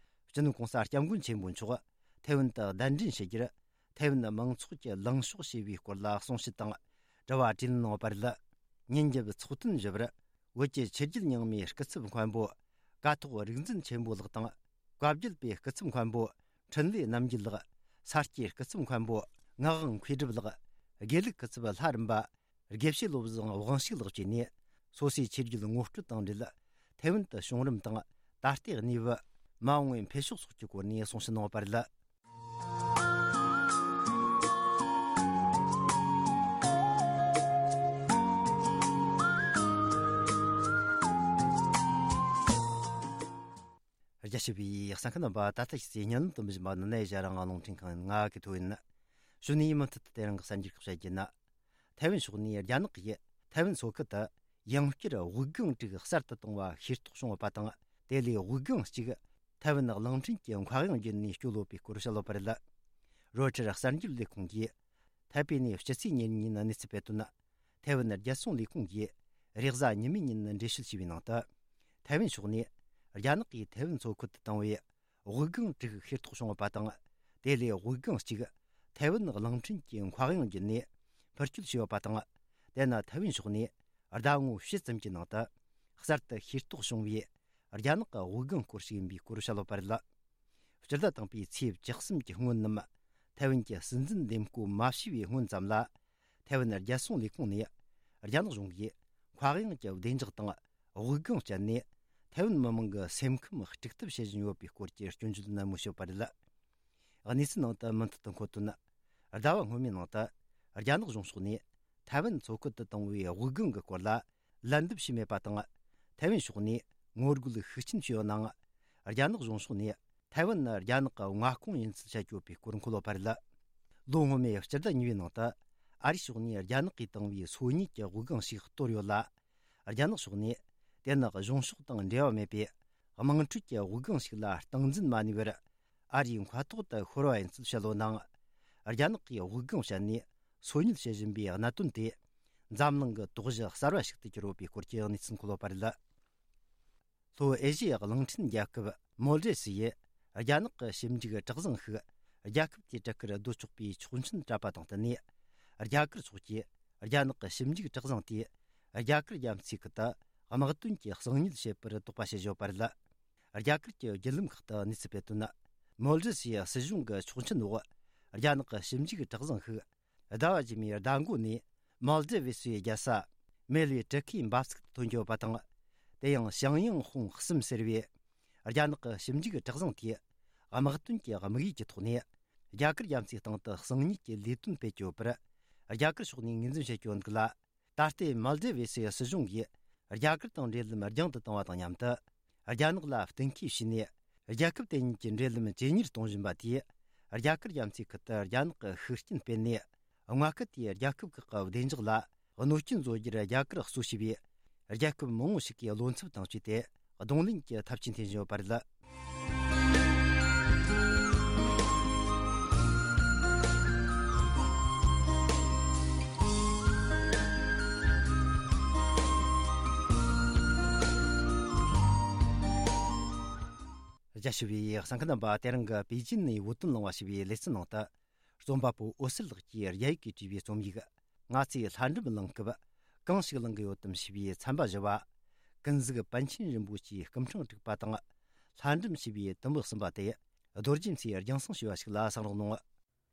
སྤྱི་ནོར་གོང་ས་སྐྱབས་མགོན་ཆེན་པོ་མཆོག་ཐའེ་ཝན་དུ་གདན་འདྲེན་ཞུ་རྒྱུར། ཐའེ་ཝན་མང་ཚོགས་ཀྱིས་ལངས་ཕྱོགས་ཞེས་པའི་སྐོར་ལ་གསུང་བཤད་དང་། དྲི་བ་དྲིས་ལན་གནང་བ་རེད། ཉིན་རྒྱབ་ཚོགས་ཐུན་བཞི་པར། བོད་ཀྱི་ཆོས་བརྒྱུད་རྙིང་མའི་སྐུ་ཚབ་མཁན་པོ་ཀཿཐོག་རིག་འཛིན་ཆེན་པོ་ལགས་དང་། བཀའ་བརྒྱུད་པའི་སྐུ་ཚབ་མཁན་པོ་འཕྲིན་ལས་རྣམ་རྒྱལ་ལགས། ས་སྐྱའི་སྐུ་ཚབ་མཁན་པོ་ངག་དབང་མཁས་གྲུབ་ལགས། དགེ་ལུགས་སྐུ་ཚབ་ལྷ་རམས་པ་དགེ་བཤེས་བློ་བཟང་དབང་ཕྱུག་ལགས་བཅས་ནས། སོ་སོའི་ཆོས་བརྒྱུད་ངོ་སྤྲོད་དང་འབྲེལ། ཐའེ་ཝན་དུ་བྱུང་རིམ་དང་། ད་ལྟའི་གནས་བབ། མ་འོངས་པའི་འཕེལ་ཕྱོགས་སོགས་ཀྱི་སྐོར་ནས་གསུང་བཤད་གནང་བ་རེད། རྒྱ་ཆེ་བའི་གསན་མཁན་རྣམ་པ། ད་ལྟ་ཞིག་སའི་ཉན་ལམ་དུ་མི་བཞིན་པ་ནི་ནའི་ཞྭ་རང་ལུང་འཕྲིན་ཁང་ཡིན། ང་གི་ཐོ་ཡིན། གཞུག་ནས་མུ་མཐུད་དུ་དེ་རིང་གི་གསར་འགྱུར་ཁག་བཤད་རྒྱུ་ན། ཐའེ་ཝན་ཕྱོགས་ནས་རྒྱ་ནག་གིས་ཐའེ་ཝན་མཚོ་ཁུལ་དུ་ཡང་བསྐྱར་དབུགས་ལྒང་དྲུག་གསར་དུ་བཏང་བ་ཤེས་རྟོགས་བྱུང་ཡོད་པ་དང་། དེ་ལས་དབུགས་ལྒང་གཅིག་ཐའེ་ཝན་གླིང་ཕྲན་གྱི་མཁའ་དབྱིངས་བརྒྱུད་ནས་སྐྱོད་ཡོད་པའི་སྐོར་བཤད་ཡོད་པ་རེད། རོའི་ཊར་གསར་འགྱུར་ལས་ཁུངས་ཀྱིས་ཐའེ་པེ་ནས་སྤྱི་ཚེས་ཉེར་གཉིས་ཉིན་གནས་ཚུལ་སྤེལ་དོན། ཐའེ་ཝན་རྒྱལ་སྲུང་ལས་ཁུངས་ཀྱིས་རེས་གཟའ་ཉི་མའི་ཉིན་འགྲེལ་བཤད་བྱས་པའི་ནང་དུ། ཐའེ་ཝན་ཕྱོགས་ནས་རྒྱ་ནག་གིས་ཐའེ་ཝན་མཚོ་ཁུལ་དུ་བཏང་བའི་དབུགས་ལྒང་དྲུག་ཤེས་རྟོགས་བྱུང་ཡོད་པ་དང་། དེ་ལས་དབུགས་ལྒང་གཅིག་ཐའེ་ཝན་གླིང་ཕྲན་གྱི་མཁའ་དབྱིངས་བརྒྱུད་ནས་འཕུར་སྐྱོད་བྱས་ཡོད་པ་དང་། དེ་ནི་ཐའེ་ཝན་ཕྱོགས་ནས་ཟླ་ངོ་བཞི་ཙམ་གྱི་ནང་དུ་གསར་དུ་ཤེས་རྟོགས་བྱུང་བའི་རྒྱ་ནག་གི་དབུགས་ལྒང་སྐོར་ཞིག་ཡིན་པའི་སྐོར་བཤད་ཡོད་པ་རེད། སྤྱི་ཟླ་དང་པོའི་ཚེས་བཅུ་གསུམ་གྱི་སྔོན་ནམ། ཐའེ་ཝན་གྱི་སྲིད་འཛིན་འདེམས་བསྐོ་མ་བྱས་པའི་སྔོན་ཙམ་ལ། ཐའེ་ཝན་རྒྱལ་སྲུང་ལས་ཁུངས་ནས་རྒྱ་ནག་གཞུང་གིས་མཁའ་དབྱིངས་ཀྱི་བདེ་འཇགས་དང་དབུགས་ལྒང་སྤྱད་ནས། ཐའེ་ཝན་མི་མང་གི་སེམས་ཁམས་དཀྲུག་ཐབས་བྱེད་བཞིན་ཡོད་པའི་སྐོར་གྱི་སྐྱོན་བརྗོད་ནན་མོ་བྱས་པ་རེད། གནས་ཚུལ་ནང་དུ་མུ་མཐུད་དུ་འཁོད་དོན། ཟླ་བ་སྔོན་མའི་ནང་དུ་རྒྱ་ནག་གཞུང་ཕྱོགས་ནས་ཐའེ་ཝན་མཚོ་ཁུལ་དུ་བཏང་བའི་དབུགས་ལྒང་གི་སྐོར་ལ་ལན་འདེབས་བྱས་མེད་པ་དང་། ཐའེ་ཝན་ཕྱོགས་ནས་ངོ་རྒོལ་ཤུགས་ཆེན་བྱས་ཡོད་ནའང་། རྒྱ་ནག་གཞུང་ཕྱོགས་ནས་ཐའེ་ཝན་ནི་རྒྱ་ནག་གི་མངའ་ཁོངས་ཡིན་ཚུལ་བཤད་ཡོད་པའི་སྐོར་འཁོད་ཡོད་པ་རེད། ལོ་སྔོན་མའི་སྤྱི་ཟླ་གཉིས་པའི་ནང་དུ་ཨ་རིའི་ཕྱོགས་ནས་རྒྱ་ནག་གིས་བཏང་བའི་སོ་གཉིས་ཀྱི་དབུགས་ལྒང་ཞིག་གཏོར་ཡོད་ལ། རྒྱ་ནག་ཕྱོགས་ནས་དེ་ནི་གཞུང་ཕྱོགས་དང་འབྲེལ་བ་མེད་པའི་དམངས་ཁྲོད་ཀྱི་དབུགས་ལྒང་ཞིག་ལ་སྟངས་འཛིན་མ་ནུས་པར། ཨ་རིའི་མཁའ་ཐོག་ཏུ་ཤོར་བ་ཡིན་ཚུལ་བཤད་ཡོད་ནའང་། རྒྱ་ནག་གིས་དབུགས་ལྒང་བཤད་ནས་སོ་ཉུལ་བྱེད་བཞིན་པའི་གནད་དོན་དེ། འཛམ་གླིང་གི་དོགས་གཞི་གསར་བ་ཞིག་ཏུ་གྱུར་ཡོད་པའི་སྐོར་གྱི་གནས་ཚུལ་འཁོད་ཡོད་པ་རེད། ལྷོ་ཨེ་ཤི་ཡའི་གླིང་ཕྲན་རྒྱལ་ཁབ་མོལ་ཌི་བ་སི་ཡིས་རྒྱ་ནག་གི་ཞིབ་འཇུག་གྲུ་གཟིངས་ཤིག་རྒྱལ་ཁབ་དེའི་གྲུ་ཁར་སྡོད་ཆོག་པའི་ཆོག་མཆན་སྤྲད་པ་དང་བསྟུན་ནས། རྒྱ་གར་ཕྱོགས་ཀྱིས་རྒྱ་ནག་གི་ཞིབ་འཇུག་གྲུ་གཟིངས་དེས་རྒྱ་གར་རྒྱ་མཚོའི་ཁུལ་དུ་དམག་དོན་གྱི་གསང་ཉུལ་བྱེད་པར་དོགས་པ་བྱེད་བཞིན་ཡོད་པ་རེད། རྒྱ་གར་གྱི་བརྒྱུད་ལམ་ཁག་ཏུ་གནས་ཚུལ་སྤེལ་དོན། མོལ་ཌི་བ་སིའི་སྲིད་གཞུང་གི་ཆོག་མཆན་འོག་རྒྱ་ནག་གི་ཞིབ་འཇུག་གྲུ་གཟིངས་ཤིག་ཟླ་བ་རྗེས་མའི་ཟླ་མགོ་ནས་མོལ་ཌི་བ་སིའི་རྒྱལ་ས་མེལ་བའི་གྲུ་ཁའི་འབབ་ཚིགས་སུ་ཐོན་གྱི་ཡོད་པ་དང་། དེ་ཡང་ཞང་ཡང་ཧུང་གསུམ་ཟེར་བའི་རྒྱ་ནག་གི་ཞིབ་འཇུག་གྲུ་གཟིངས་དེས་དམག་དོན་གྱི་དམིགས་ཡུལ་གྱི་ཐོག་ནས་རྒྱ་གར་རྒྱ་མཚོའི་སྟེང་དུ་གསང་ཉུལ་གྱི་ལས་དོན་སྤེལ་གྱི་ཡོད་པར་རྒྱ་གར་ཕྱོགས་ནས་ངོས་འཛིན་བྱེད་ཀྱི་ཡོད་འདུག་ལ། ད་ལྟའི་མོལ་ཌི་བ་སིའི་སྲིད་གཞུང་གིས་རྒྱ་གར་དང་འབྲེལ་ལམ་རྒྱང་དུ་བཏང་བ་དང་མཉམ་དུ། རྒྱ་ནག་ལ་གཏན་འཁེལ་བྱས་ནས། རྒྱལ་ཁབ་དེ་གཉིས་ཀྱི་འབྲེལ་ལམ་ཇེ་ཉེར་གཏོང་བཞིན་པ་དེས། རྒྱ་གར་རྒྱ་མཚོའི་ཁུལ་དུ་རྒྱ་ནག་གི་ཤུགས་རྐྱེན་སྤེལ་ནས། མངའ་ཁུལ་དེའི་རྒྱལ་ཁབ་ཁག་གི་བདེ་འཇགས་ལ་གནོད་སྐྱོན་བཟོ་རྒྱུར་རྒྱ་གར་གཙོ་བྱས་པའི་རྒྱལ་ཁབ་མང་བོ་ཞིག་གིས་བློ་འཚབ་དང་བཅས་ཏེ། གདོང་ལེན་གྱི་ཐབས་ཇུས་འཐེན་བཞིན་ཡོད་པ་རེད། རྒྱ་ཆེ་བའི་གསན་མཁན་རྣམ་པ། དེ་རིང་གི་པེ་ཅིན་ནས་བོད་དོན་གླེང་བ་ཞེས་པའི་ལེ་ཚན་ནང་དུ། རྩོམ་པ་པོ་འོད་ཟེར་ལགས་ཀྱིས་རྒྱ་ཡིག་གིས་བྲིས་པའི་རྩོམ་ཡིག་ང་ཚོས་ལྷ་འབྲུམ་གླེང་སྐབས་གང་ཞིག་གླེང་གི་ཡོད་དམ་ཞེས་པའི་ཚན་པ་བཞི་བ། ཀུན་གཟིགས་པཎ་ཆེན་རིན་པོ་ཆེའི་སྐུ་ཕྲེང་དྲུག་པ་དང་། ལྷ་འབྲུམ་ཞེས་པའི་དུམ་བུ་གསུམ་པ་དེ་རྡོ་རྗེ་མཚོས་རྒྱང་སྲིང་ཞུས་པ་ཞིག་ལ་གསན་རོགས་གནང་།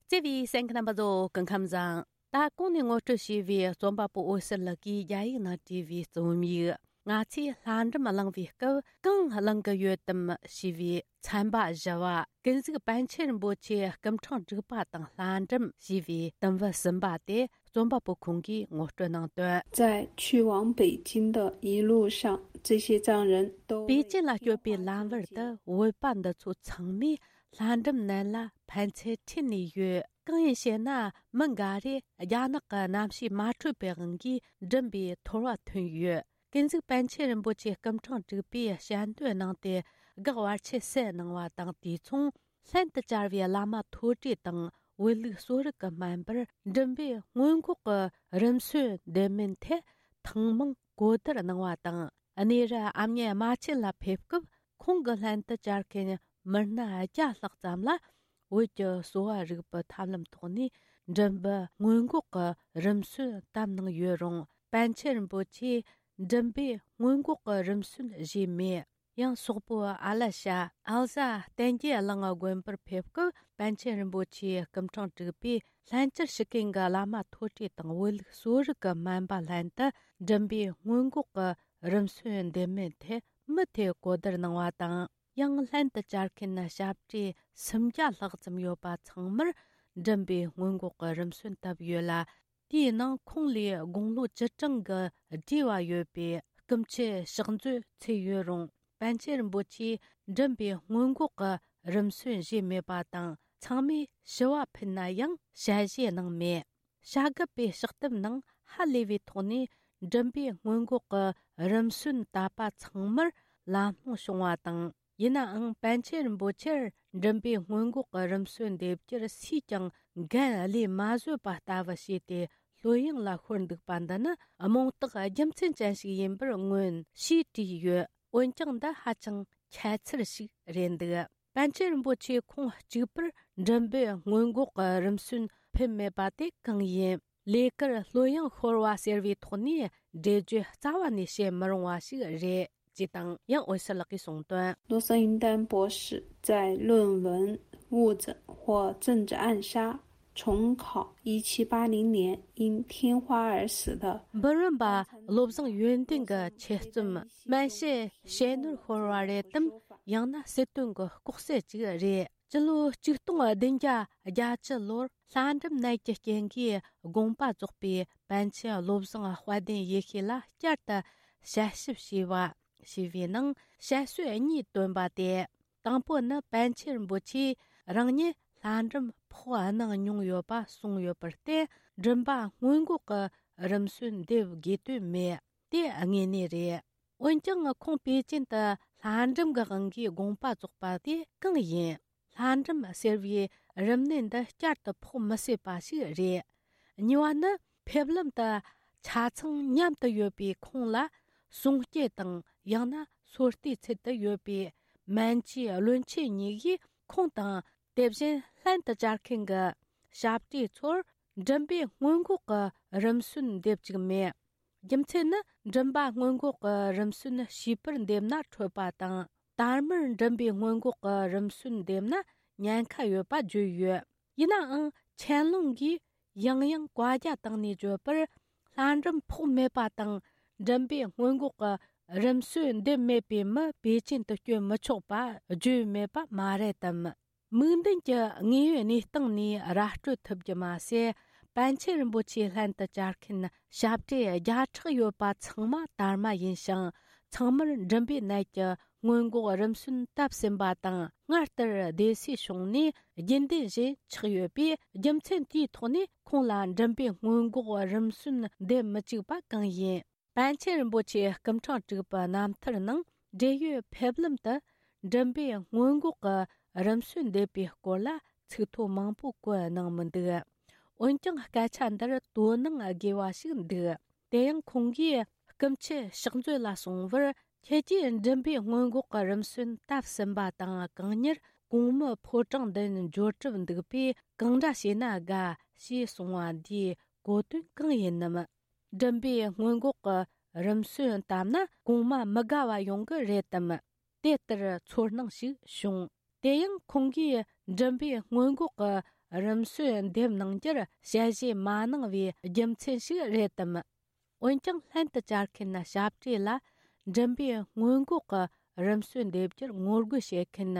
བརྩེ་བའི་གསན་མཁན་རྣམ་པ་ཚོ་སྐུ་ཁམས་བཟང་། ད་གོང་ནས་ངོ་སྤྲོད་བྱས་པའི་རྩོམ་པ་པོ་འོད་ཟེར་ལགས་ཀྱིས་རྒྱ་ཡིག་ནང་བྲིས་པའི་རྩོམ་ཡིག་ང་ཚོས་ལྷ་འབྲུམ་གླེང་བའི་སྐབས་གང་གླེང་གི་ཡོད་དམ་ཞེས་པའི་ཚན་པ་བཞི་བ། ཀུན་གཟིགས་པཎ་ཆེན་རིན་པོ་ཆེའི་སྐུ་ཕྲེང་དྲུག་པ་དང་ལྷ་འབྲུམ་ཞེས་པའི་དུམ་བུ་གསུམ་པ་དེ་རྩོམ་པ་པོ་ཁོང་གིས་ངོ་སྤྲོད་གནང་དོན། 在去往北京的一路上，这些藏人都为 པེ་ཅིན་ལ་སྐྱོད་པའི་ལམ་བར་དུ་བོད་པ་འདི་ཚོ་ཚང་མས་ལྷ་འབྲུམ་ནད་ལ་ཕན་ཚུན་ཁྲིད་ནས་ཡོད། གང་ཡིན་ཞེ་ན། མི་འགའ་རེས་རྒྱ་ནག་གི་གནམ་གཤིས་མ་འཕྲོད་པའི་དབང་གིས་འབྲུམ་པའི་ཐོར་བ་ཐོན་ཡོད། ཀུན་གཟིགས་པཎ་ཆེན་རིན་པོ་ཆེ་སྐུ་ཕྲེང་དྲུག་པས་ཞལ་འདོན་གནང་སྟེ་གེགས་བར་ཆད་སེལ་གནང་བ་དང་། དུས་མཚུངས་ལྷན་དུ་བཅར་བའི་བླ་མ་མཐོ་གྲས་དང་བོད་ལུགས་གསོ་རིག་གི་སྨན་པར་འབྲུམ་པའི་སྔོན་འགོག་གི་རིམས་སོལ་འདེམས་སྨན་ཐད་ཐེངས་མང་གོ་བསྡུར་གནང་བ་དང་། གནས་རི་ཨ་མྱེས་རྨ་ཆེན་ལ་ཕེབས་སྐབས་ཁོང་གི་ལྷན་དུ་བཅར་མཁན་མི་སྣ་བརྒྱ་ལྷག་ཙམ་ལ་བོད་ཀྱི་གསོ་བ་རིག་པའི་ཐབས་ལམ་ཐོག་ནས་འབྲུམ་པའི་སྔོན་འགོག་གི་རིམས་སོལ་བཏབ་གནང་ཡོད་རུང་། པཎ་ཆེན་རིན་པོ་ཆེས་འབྲུམ་པའི་སྔོན་འགོག་གི་རིམས་སོལ་བཞེས་མེད། ཡང་སོག་པོའི་ཨ་ལ་ཤ་ཨལ་ཟ་བསྟན་རྒྱས་གླིང་དགོན་པར་ཕེབས་སྐབས། པཎ་ཆེན་རིན་པོ་ཆེའི་སྐུ་ཕྲེང་དྲུག་པས་ལྷན་སྐྱེས་སྤྱི་ཁྱབ་ཀྱི་བླ་མ་མཐོ་གྲས་དང་བོད་ལུགས་གསོ་རིག་གི་སྨན་པ་ལྷན་དུ་མགྲིན་པའི་སྔོན་འགོག་གི་རིམས་སོལ་འདེབས་མིན་ཐད་མུ་མཐུད་གོ་བསྡུར་གནང་བ་དང་། ཡང་ལྷན་དུ་བཅར་མཁན་ཞབས་ཀྱི་སུམ་བརྒྱ་ལྷག་ཙམ་ཡོད་པ་ཚང་མར་མགྲིན་པའི་སྔོན་འགོག་གི་རིམས་སོལ་བཏབ་ཡོད་ལ། དེའི་ནང་ཁོང་ལས་དགུང་ལོ་བཅུ་གྲངས་ཀྱི་བགྲེས་བ་ཡོད་པའི་སྐུ་མཆེད་ཕྱག་མཛོད་ཚུད་ཡོད་རུང་། པཎ་ཆེན་རིན་པོ་ཆེས་མགྲིན་པའི་སྔོན་འགོག་གི་རིམས་སོལ་བཞེས་མེད་པ་དང་། ཚང་མས་ཞུ་བ་ཕུལ་ན་ཡང་ཞལ་བཞེས་གནང་མེད། བྱ་རྒོད་པའི་ཕྱག་དེབ་ནང་ཧ་ལས་པའི་ཐོག་ནས་མགྲིན་པའི་སྔོན་འགོག་གི་རིམས་སོལ་བཏབ་པ་ཚང་མར་ལམ་ལྷོང་བྱུང་བ་དང་། ཡིན་ནའང་པཎ་ཆེན་རིན་པོ་ཆེར་མགྲིན་པའི་སྔོན་འགོག་གི་རིམས་སོལ་འདེབས་རྒྱུར་སུས་ཀྱང་འགན་ལས་མ་བཟོད་པ་ལྟ་བུ་བྱས་ཏེ་ལྷོད་ཡངས་ལ་ཤོར་འདུག་པ་འདི་ནི་རྨོངས་རྟགས་རྒྱུ་མཚན་ཅན་ཞིག་ཡིན་པར་མངོན་ཞེས་བྲིས་ཡོད། འོན་ཀྱང་འདི་ཧ་ཅང་ཁྱད་མཚར་ཞིག་རེད་འདུག་པཎ་ཆེན་རིན་པོ་ཆེ་ཁོང་གཅིག་པུར་མགྲིན་པའི་སྔོན་འགོག་གི་རིམས་སོལ་ཕུལ་མེད་པ་དེ་གང་ཡིན། ལས་ཀར་ལྷོད་ཡངས་ཤོར་བ་ཟེར་བའི་ཐོག་ནས་འགྲེལ་བརྗོད་རྩ་བ་ནས་བྱེད་མི་རུང་བ་ཞིག་རེད། ཅེས་དང་ཡང་འོད་ཟེར་ལགས་ཀྱིས་གསུངས་དོན། 罗森云丹博士在论文、物证或政治暗杀重考一七八零年因天花而死的 འབུམ་རམས་པ་བློ་བཟང་ཡོན་ཏན་གྱི་ཆེད་རྩོམ། སྨན་དཔྱད་ཞེ་ནོར་ཤོར་བ་རེད་དམ། ཡང་ན་སྲིད་དོན་གྱི་ལྐོག་གསོད་ཅིག་རེད། སྤྱི་ལོ་ཆིག་སྟོང་བདུན་བརྒྱ་བརྒྱད་ཅུ་ལོར་ལྷ་འབྲུམ་ནད་ཀྱི་རྐྱེན་གྱིས་དགོངས་པ་རྫོགས་པའི་པཎ་ཆེན་བློ་བཟང་དཔལ་ལྡན་ཡེ་ཤེས་ལ་བསྐྱར་དུ་ཞལ་ཞིབ་བྱས་པ། ཞེས་པའི་ནང་དཔྱད་བརྗོད་གཉིས་བཏོན་པ་སྟེ། དང་པོ་ནི་པཎ་ཆེན་རིན་པོ་ཆེས་རང་ཉིད་ལྷ་འབྲུམ་ཕོག་གནང་མྱོང་ཡོད་པ་གསུངས་ཡོད་པར་བརྟེན། མགྲིན་པ་སྔོན་འགོག་གི་རིམས་སོལ་འདེབས་དགོས་དོན་མེད། དེ་དངོས་གནས་རེད། འོན་ཀྱང་ཁོང་པེ་ཅིན་དུ་ལྷ་འབྲུམ་གྱི་དབང་གིས་དགོངས་པ་རྫོགས་པ་དེ་གང་ཡིན། ལྷ་འབྲུམ་ཟེར་བའི་རིམས་ནད་འདི་བསྐྱར་དུ་ཕོག་མི་སྲིད་པ་ཞིག་རེད། གཉིས་པ་ནི་ཕེབས་ལམ་དུ་ཆ་ཚང་མཉམ་དུ་ཡོད་པའི་ཁོང་ལ་གསུང་སྐྱེལ་དང་ཡང་ན་སོ་ལྟའི་ཚུལ་དུ་ཡོད་པའི་སྨན་བཅོས་བློན་ཆེན་གཉིས་ཀྱིས་ཁོང་དང་དེ་བཞིན་ལྷན་དུ་བཅར་མཁན་གྱི་ཞབས་ཀྱི་ཚོར་མགྲིན་པའི་སྔོན་འགོག་གི་རིམས་སོལ་འདེབས་བཅུག་མེད། རྒྱུ་མཚན་ནི་མགྲིན་པ་སྔོན་འགོག་གི་རིམས་སོལ་བྱིས་པར་འདེབས་ན་འཕྲོད་པ་དང་། དར་མར་མགྲིན་པའི་སྔོན་འགོག་གི་རིམས་སོལ་འདེབས་ན་ཉེན་ཁ་ཡོད་པ་བརྗོད་ཡོད། ཡིན་ནའང་ཆན་ལུང་གིས་ཡང་ཡང་བཀའ་རྒྱ་བཏང་ནས་བརྗོད་པར། ལྷ་འབྲུམ་ཕོག་མེད་པ་དང་མགྲིན་པའི་སྔོན་འགོག་གི་རིམས་སོལ་འདེབས་མེད་པའི་མི་པེ་ཅིན་དུ་བསྐྱོད་མི་ཆོག་པ་བརྗོད་མེད་པ་མ་རེད་དམ། མིག་མདུན་གྱི་དངོས་ཡོད་གནས་སྟངས་ནས་ར་སྤྲོད་ཐུབ་རྒྱུ་མ་ཟད། པཎ་ཆེན་རིན་པོ་ཆེའི་ལྷན་དུ་བཅར་མཁན་ཞབས་ཀྱི་བརྒྱ་ཕྲག་ཡོད་པ་ཚང་མ་དར་མ་ཡིན་ཞིང་། ཚང་མར་མགྲིན་པའི་ནད་ཀྱི་སྔོན་འགོག་རིམས་སོལ་བཏབ་ཟིན་པ་དང་། སྔར་ལྟར་བདེ་སྲུང་བྱུང་ནས་རྒྱུན་ལྡན་བཞིན་ཆགས་ཡོད་པས། རྒྱུ་མཚན་དེའི་ཐོག་ནས་ཁོང་ལ་མགྲིན་པའི་སྔོན་འགོག་རིམས་སོལ་འདེབས་མི་བཅུག་པ་གང་ཡིན། པཎ་ཆེན་རིན་པོ་ཆེའི་སྐུ་ཕྲེང་དྲུག་པའི་རྣམ་ཐར་ནང་འབྲེལ་ཡོད་ཕེབས་ལམ་དུ་མགྲིན་པའི་སྔོན་འགོག་གི་རིམས་སོལ་འདེབས་པའི་སྐོར་ལ་ཚིག་ཐོ་མང་པོ་བཀོད་གནང་མི་འདུག་འོན་ཀྱང་སྐད་ཆ་འདིར་དོ་སྣང་དགོས་པ་ཞིག་འདུག་དེ་ཡང་ཁོང་གིས་སྐུ་མཆེད་ཕྱག་མཛོད་ལ་གསུངས་པར། ཁྱེད་ཀྱིས་མགྲིན་པའི་སྔོན་འགོག་གི་རིམས་སོལ་བཏབ་ཟིན་པ་དང་། གང་མྱུར་གོང་མའི་ཕོ་བྲང་མདུན་འབྱོར་གྲབས་འདུག་པས་གང་འདྲ་བྱས་ན་དགའ་ཞེས་གསུངས་པ་འདིའི་གོ་དོན་གང་ཡིན་ནམ། མགྲིན་པའི་སྔོན་འགོག་གི་རིམས་སོལ་བཏབ་ན་གོང་མ་མི་དགའ་བ་ཡོང་གི་རེད་དམ། དེ་ལྟར་ཚོར་སྣང་ཞིག་བྱུང་། དེ་ཡང་ཁོང་གིས་མགྲིན་པའི་སྔོན་འགོག་གི་རིམས་སོལ་འདེབས་གནང་རྒྱུར་ཞལ་བཞེས་མ་གནང་བའི་རྒྱུ་མཚན་ཞིག་རེད་དམ། འོན་ཀྱང་ལྷན་དུ་བཅར་མཁན་ཞབས་ཀྱི་ལ་མགྲིན་པའི་སྔོན་འགོག་གི་རིམས་སོལ་འདེབས་རྒྱུར་ངོ་རྒོལ་བྱེད་མཁན་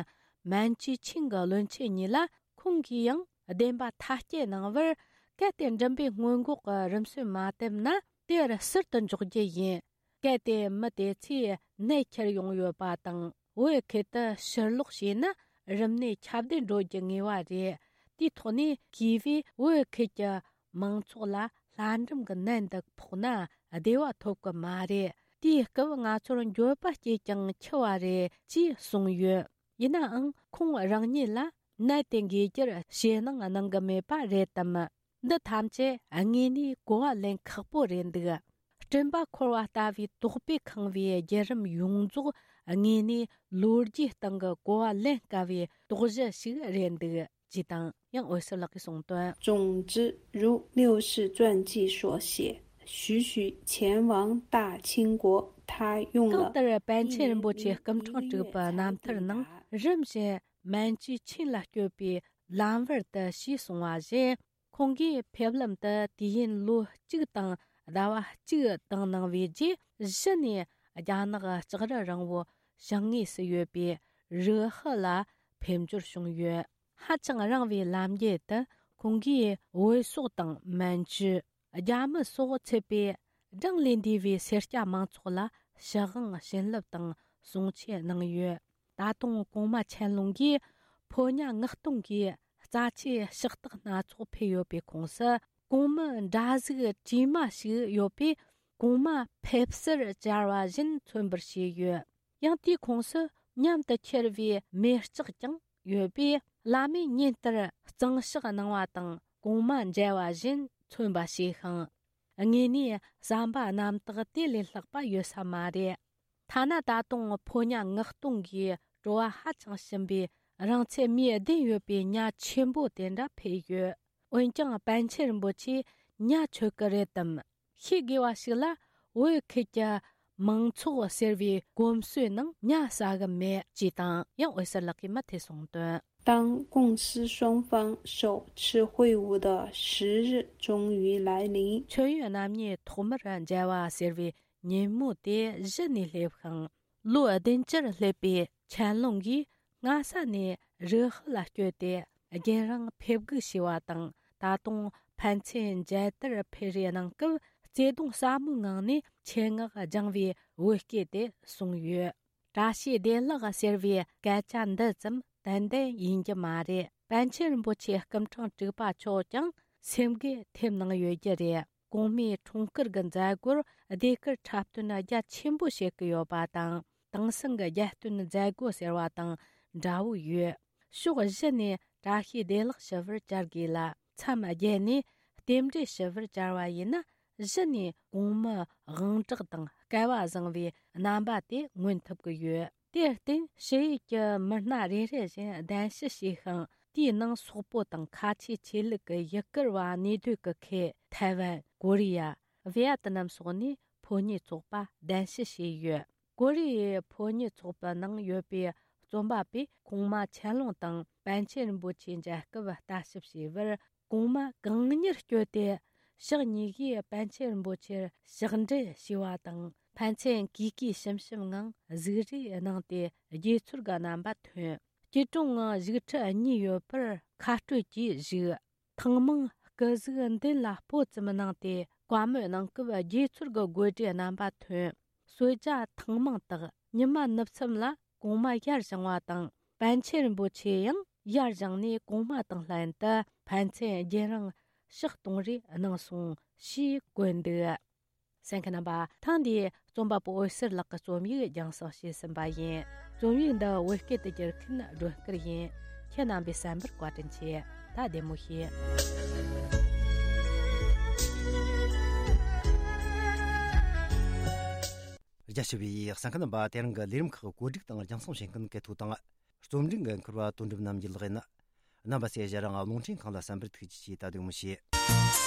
སྨན་བཅོས་ཆེན་གྱི་བློན་ཆེན་གཉིས་ལ། ཁོང་གིས་ཡང་བདེན་པ་ཐག་བཅད་གནང་བར། གལ་ཏེ་མགྲིན་པའི་སྔོན་འགོག་གི་རིམས་སོལ་མ་བཏབ་ན་དེར་ཟུར་དུ་འཇོག་རྒྱུ་ཡིན། གལ་ཏེ་མི་དེ་ཚོས་ནད་ཁྱེར་ཡོང་ཡོད་པ་དང་བོད་ཁུལ་དུ་ཕྱིར་ལོག་བྱས་ན་རིམས་ནད་ཁྱབ་གདལ་འགྲོ་རྒྱུ་ངེས་པ་རེད། དེའི་ཐོག་ནས་གུས་པས་བོད་ཁུལ་གྱི་མང་ཚོགས་ལ་ལྷ་འབྲུམ་གྱི་ནད་འདི་ཕོག་ན་བདེ་བ་ཐོབ་ཀྱི་མ་རེད། དེའི་སྐབས་ང་ཚོར་འགྱོད་པ་སྐྱེས་ཀྱང་འཆི་བ་རེད་ཅེས་གསུངས་ཡོད། ཡིན་ནའང་ཁོང་རང་ཉིད་ལ་ནད་དེ་འགོས་རྒྱུར་ཞེད་སྣང་གནང་གི་མེད་པ་རེད་དམ། འདི་ཐམས་ཅད་དངོས་གནས་གོ་བ་ལེན་ཁག་པོ་རེད་འདུག་སྤྲིན་པ་འཁོར་བ་ལྟ་བུའི་དོགས་པས་ཁེངས་པའི་བརྒྱུད་རིམ་ཡོངས་རྫོགས་དངོས་གནས་ལོ་རྒྱུས་སྟེང་གི་གོ་བ་ལེན་དཀའ་བའི་དོགས་གཞི་ཞིག་རེད་འདུག་ཅེས་དང་ཡང་འོད་ཟེར་ལགས་ཀྱིས་གསུངས་དོན། 总之，如六世传记所写，徐徐前往大清国他用了。 གང་ལྟར་པཎ་ཆེན་རིན་པོ་ཆེ་སྐུ་འཕྲེང་དྲུག་པའི་རྣམ་ཐར་ནང་རིམ་བཞིན་མན་ཇུའི་ཆིན་ལ་བསྐྱོད་པའི་ལམ་བར་དུ་ཞེས་གསུངས་པ་བཞིན། ཁོང་གིས་ཕེབས་ལམ་དུ་དུས་ཡུན་ལོ་གཅིག་དང་ཟླ་བ་གཅིག་བཏང་གནང་བའི་རྗེས། གཞི་ནས་རྒྱ་ནག་ལྕགས་རི་རིང་བོ་བྱང་ངོས་སུ་ཡོད་པའི་རུ་ཧི་ལ་ཕེབས་འབྱོར་བྱུང་ཡོད། ཧ་ཅང་རིང་བའི་ལམ་རྒྱུད་དུ་ཁོང་གིས་བོད་སོག་དང་མན་ཇུ། རྒྱ་མི་སོགས་ཚུད་པའི་གྲངས་ལས་འདས་པའི་སེར་སྐྱ་མང་ཚོགས་ལ་ཞུ་དབང་བྱིན་རླབས་དང་གསུང་ཆོས་གནང་ཡོད། ད་དུང་གོང་མ་ཆན་ལུང་གིས་ཕོ་ཉ་ངག་སྟོང་གི་རྩ་ཆེའི་ཕྱག་རྟགས་སྣ་ཚོགས་ཕུལ་ཡོད་པའི་ཁོངས་སུ། གོང་མའི་འདྲ་གཟུགས་བྲིས་མ་ཞིག་ཡོད་པས། གོང་མ་ཕེབས་བསུར་བཅར་བ་བཞིན་མཚོན་པར་བྱས་ཡོད། ཡང་དེའི་ཁོངས་སུ་མཉམ་དུ་འཁྱེར་བའི་མེ་ལྕགས་ཀྱང་ཡོད་པས། བླ་མས་ཉིན་ལྟར་གཙང་ཕྱག་གནང་བ་དང་གོང་མ་མཇལ་བ་བཞིན་མཚོན་པ་བྱས་ཤིང་། དངོས་གནས་བསམ་པ་རྣམ་དག་དེ་ལས་ལྷག་པ་ཡོད་ས་མ་རེད། ཐ་ན་ད་དུང་ཕོ་ཉ་ངག་སྟོང་གིས་བྲོ་བ་ཧ་ཅང་ཞིམ་པའི་རིང་ཚད་མིའི་ལྡན་ཡོད་པའི་ཉ་ཆེན་པོ་དེ་འདྲ་ཕུལ་ཡོད། འོན་ཀྱང་པཎ་ཆེན་རིན་པོ་ཆེས་ཉ་མཆོད་ཀྱི་རེད་དམ། ཤེས་དགོས་པ་ཞིག་ལ། བོད་ཁུལ་གྱི་མང་ཚོགས་ཟེར་བའི་གོམས་སྲོལ་ནང་ཉ་ཟ་གི་མེད་ཅེས་དང་། ཡང་འོད་ཟེར་ལགས་ཀྱིས་མུ་མཐུད་གསུངས་དོན། 当共师双方首次会晤的时日终于来临。 མཆོད་ཡོན་རྣམ་གཉིས་ཐོག་མར་མཇལ་བ་ཟེར་བའི་ཉིན་མོ་དེ་གཞི་ནས་སླེབས་ཤིང་། ལོ་བདུན་ཅུར་སླེབས་པའི་ཆན་ལུང་གིས་སྔ་ས་ནས་རུ་ཧི་ལ་བསྐྱོད་དེ་རྒྱུན་རིང་ཕེབས་སྒུག་བྱས་པ་དང་། ད་དུང་ཕན་ཚུན་མཇལ་དར་འཕུར་རེས་གནང་སྐབས། བརྩེ་གདུང་ཟབ་མོའི་ངང་ནས་ཆེད་མངགས་སྦྱངས་པའི་བོད་སྐད་དེ་གསུངས་ཡོད། བཀྲ་ཤིས་བདེ་ལེགས་ཟེར་བའི་སྐད་ཆ་འདི་ཙམ་ཏན་ཏན་ཡིན་གྱི་མ་རེད། པཎ་ཆེན་རིན་པོ་ཆེ་སྐུ་འཕྲེང་དྲུག་པ་མཆོག་ཀྱང་སེམས་འགུལ་ཐེབས་གནང་ཡོད་རྒྱུ་རེད། གོང་མའི་འཁྲུངས་སྐར་གྱི་མཛད་སྒོར་ཟློས་གར་འཁྲབ་སྟོན་རྒྱ་ཆེན་པོ་བྱེད་ཀྱི་ཡོད་པ་དང་། དེང་སང་གི་རྒྱལ་སྟོན་མཛད་སྒོ་ཟེར་བ་དང་འདྲ་བོ་ཡོད། ཕྱོགས་བཞི་ནས་བཀྲ་ཤིས་བདེ་ལེགས་ཞུ་བར་བཅར་དགོས་ལ། མཚམས་བརྒྱད་ནས་རྟེན་འབྲེལ་ཞུ་བར་བཅར་བ་ཡིན་ན། གཞི་ནས་གོང་མའི་དབང་གྲགས་དང་སྐལ་བ་བཟང་བའི་རྣམ་པ་དེ་མངོན་ཐུབ་ཀྱི་ཡོད། དེར་བརྟེན་ཕྱི་ཡུལ་གྱི་མི་སྣ་རེ་རེ་བཞིན་གདན་ཞུ་བྱས་ཤིང་། དེའི་ནང་སོག་པོ་དང་ཁ་ཆེ་ཆོས་ལུགས་ཀྱི་ཡུ་གུར་བ་གནས་སྡོད་ཀྱི་ཁུལ་ཐའེ་ཝན། ཀོ་རི་ཡ། ཝེ་ཡ་ཏི་ནམ་སོགས་ནས་ཕོ་ཉའི་ཚོགས་པ་གདན་ཞུ་བྱས་ཡོད། ཀོ་རི་ཡའི་ཕོ་ཉའི་ཚོགས་པའི་ནང་ཡོད་པའི་རྩོམ་པ་པོས་གོང་མ་ཆན་ལུང་དང་པཎ་ཆེན་རིན་པོ་ཆེ་མཇལ་སྐབས་ལྟ་ཞིབ་བྱས་པར། གོང་མ་གང་མྱུར་བསྐྱོད་དེ་ཕྱག་གཉིས་ཀྱིས་པཎ་ཆེན་རིན་པོ་ཆེར་ཕྱག་འབྲེལ་ཞུས་པ་དང་། ཕན་ཚུན་གུས་གུས་ཞུམ་ཞུམ་ངང་གཟིགས་རེས་གནང་སྟེ་དགྱེས་ཚུལ་གྱི་རྣམ་པ་ཐོན། སྐྱིལ་ཀྲུང་ངང་བཞུགས་ཁྲི་གཉིས་ཡོད་པར་ཁ་སྤྲོད་ཀྱིས་བཞུགས། ཐེངས་མང་སྐུ་གཟུགས་མདུན་ལ་སྤོ་ཙམ་གནང་སྟེ་བཀའ་མོལ་གནང་སྐབས་དགྱེས་ཚུལ་གྱི་དགོད་སྒྲའི་རྣམ་པ་ཐོན། གསོལ་ཇ་ཐེངས་མང་བཏབ། ཉི་མ་ནུབ་མཚམས་ལ་གོང་མ་ཡར་བཞེངས་པ་དང་། པཎ་ཆེན་རིན་པོ་ཆེ་ཡང་ཡར་བཞེངས་ནས་གོང་མ་དང་ལྷན་དུ་ཕན་ཚུན་རྒྱུན་རིང་ཕྱག་གཏོང་རེས་གནང་སོང་ཞེས་བཀོད་འདུག་གསན་མཁན་རྣམ་པ། ཐེངས་འདིའི་རྩོམ་པ་པོ་འོད་ཟེར་ལགས་ཀྱི་རྩོམ་ཡིག་རྒྱང་སྲིང་བྱས་ཟིན་པ་ཡིན། རྩོམ་ཡིག་འདི་བོད་སྐད་དུ་བསྒྱུར་མཁན་སྒྲོན་དཀར་ཡིན། ཁྱེད་རྣམ་པས་གསན་པར་བཀའ་དྲིན་ཆེ། ད་བདེ་མོ་བྱོས། རྒྱ་ཆེ་བའི་གསན་མཁན་རྣམ་པ། དེ་རིང་གི་ལས་རིམ་ཁག་བཀོད་སྒྲིག་དང་རྒྱང་སྲིང་བྱེད་མཁན་གལ་ཐོ་དང་། རྩོམ་སྒྲིག་འགན་འཁུར་བ་དོན་གྲུབ་རྣམ་རྒྱལ་ལགས་ཡིན། རྣམ་པ་ཚོས་ཞལ་རང་རླུང་འཕྲིན་ཁང་ལ་གསན་པར་ཐུགས་རྗེ་ཆེ། ད་བདེ་མོ་བྱོས།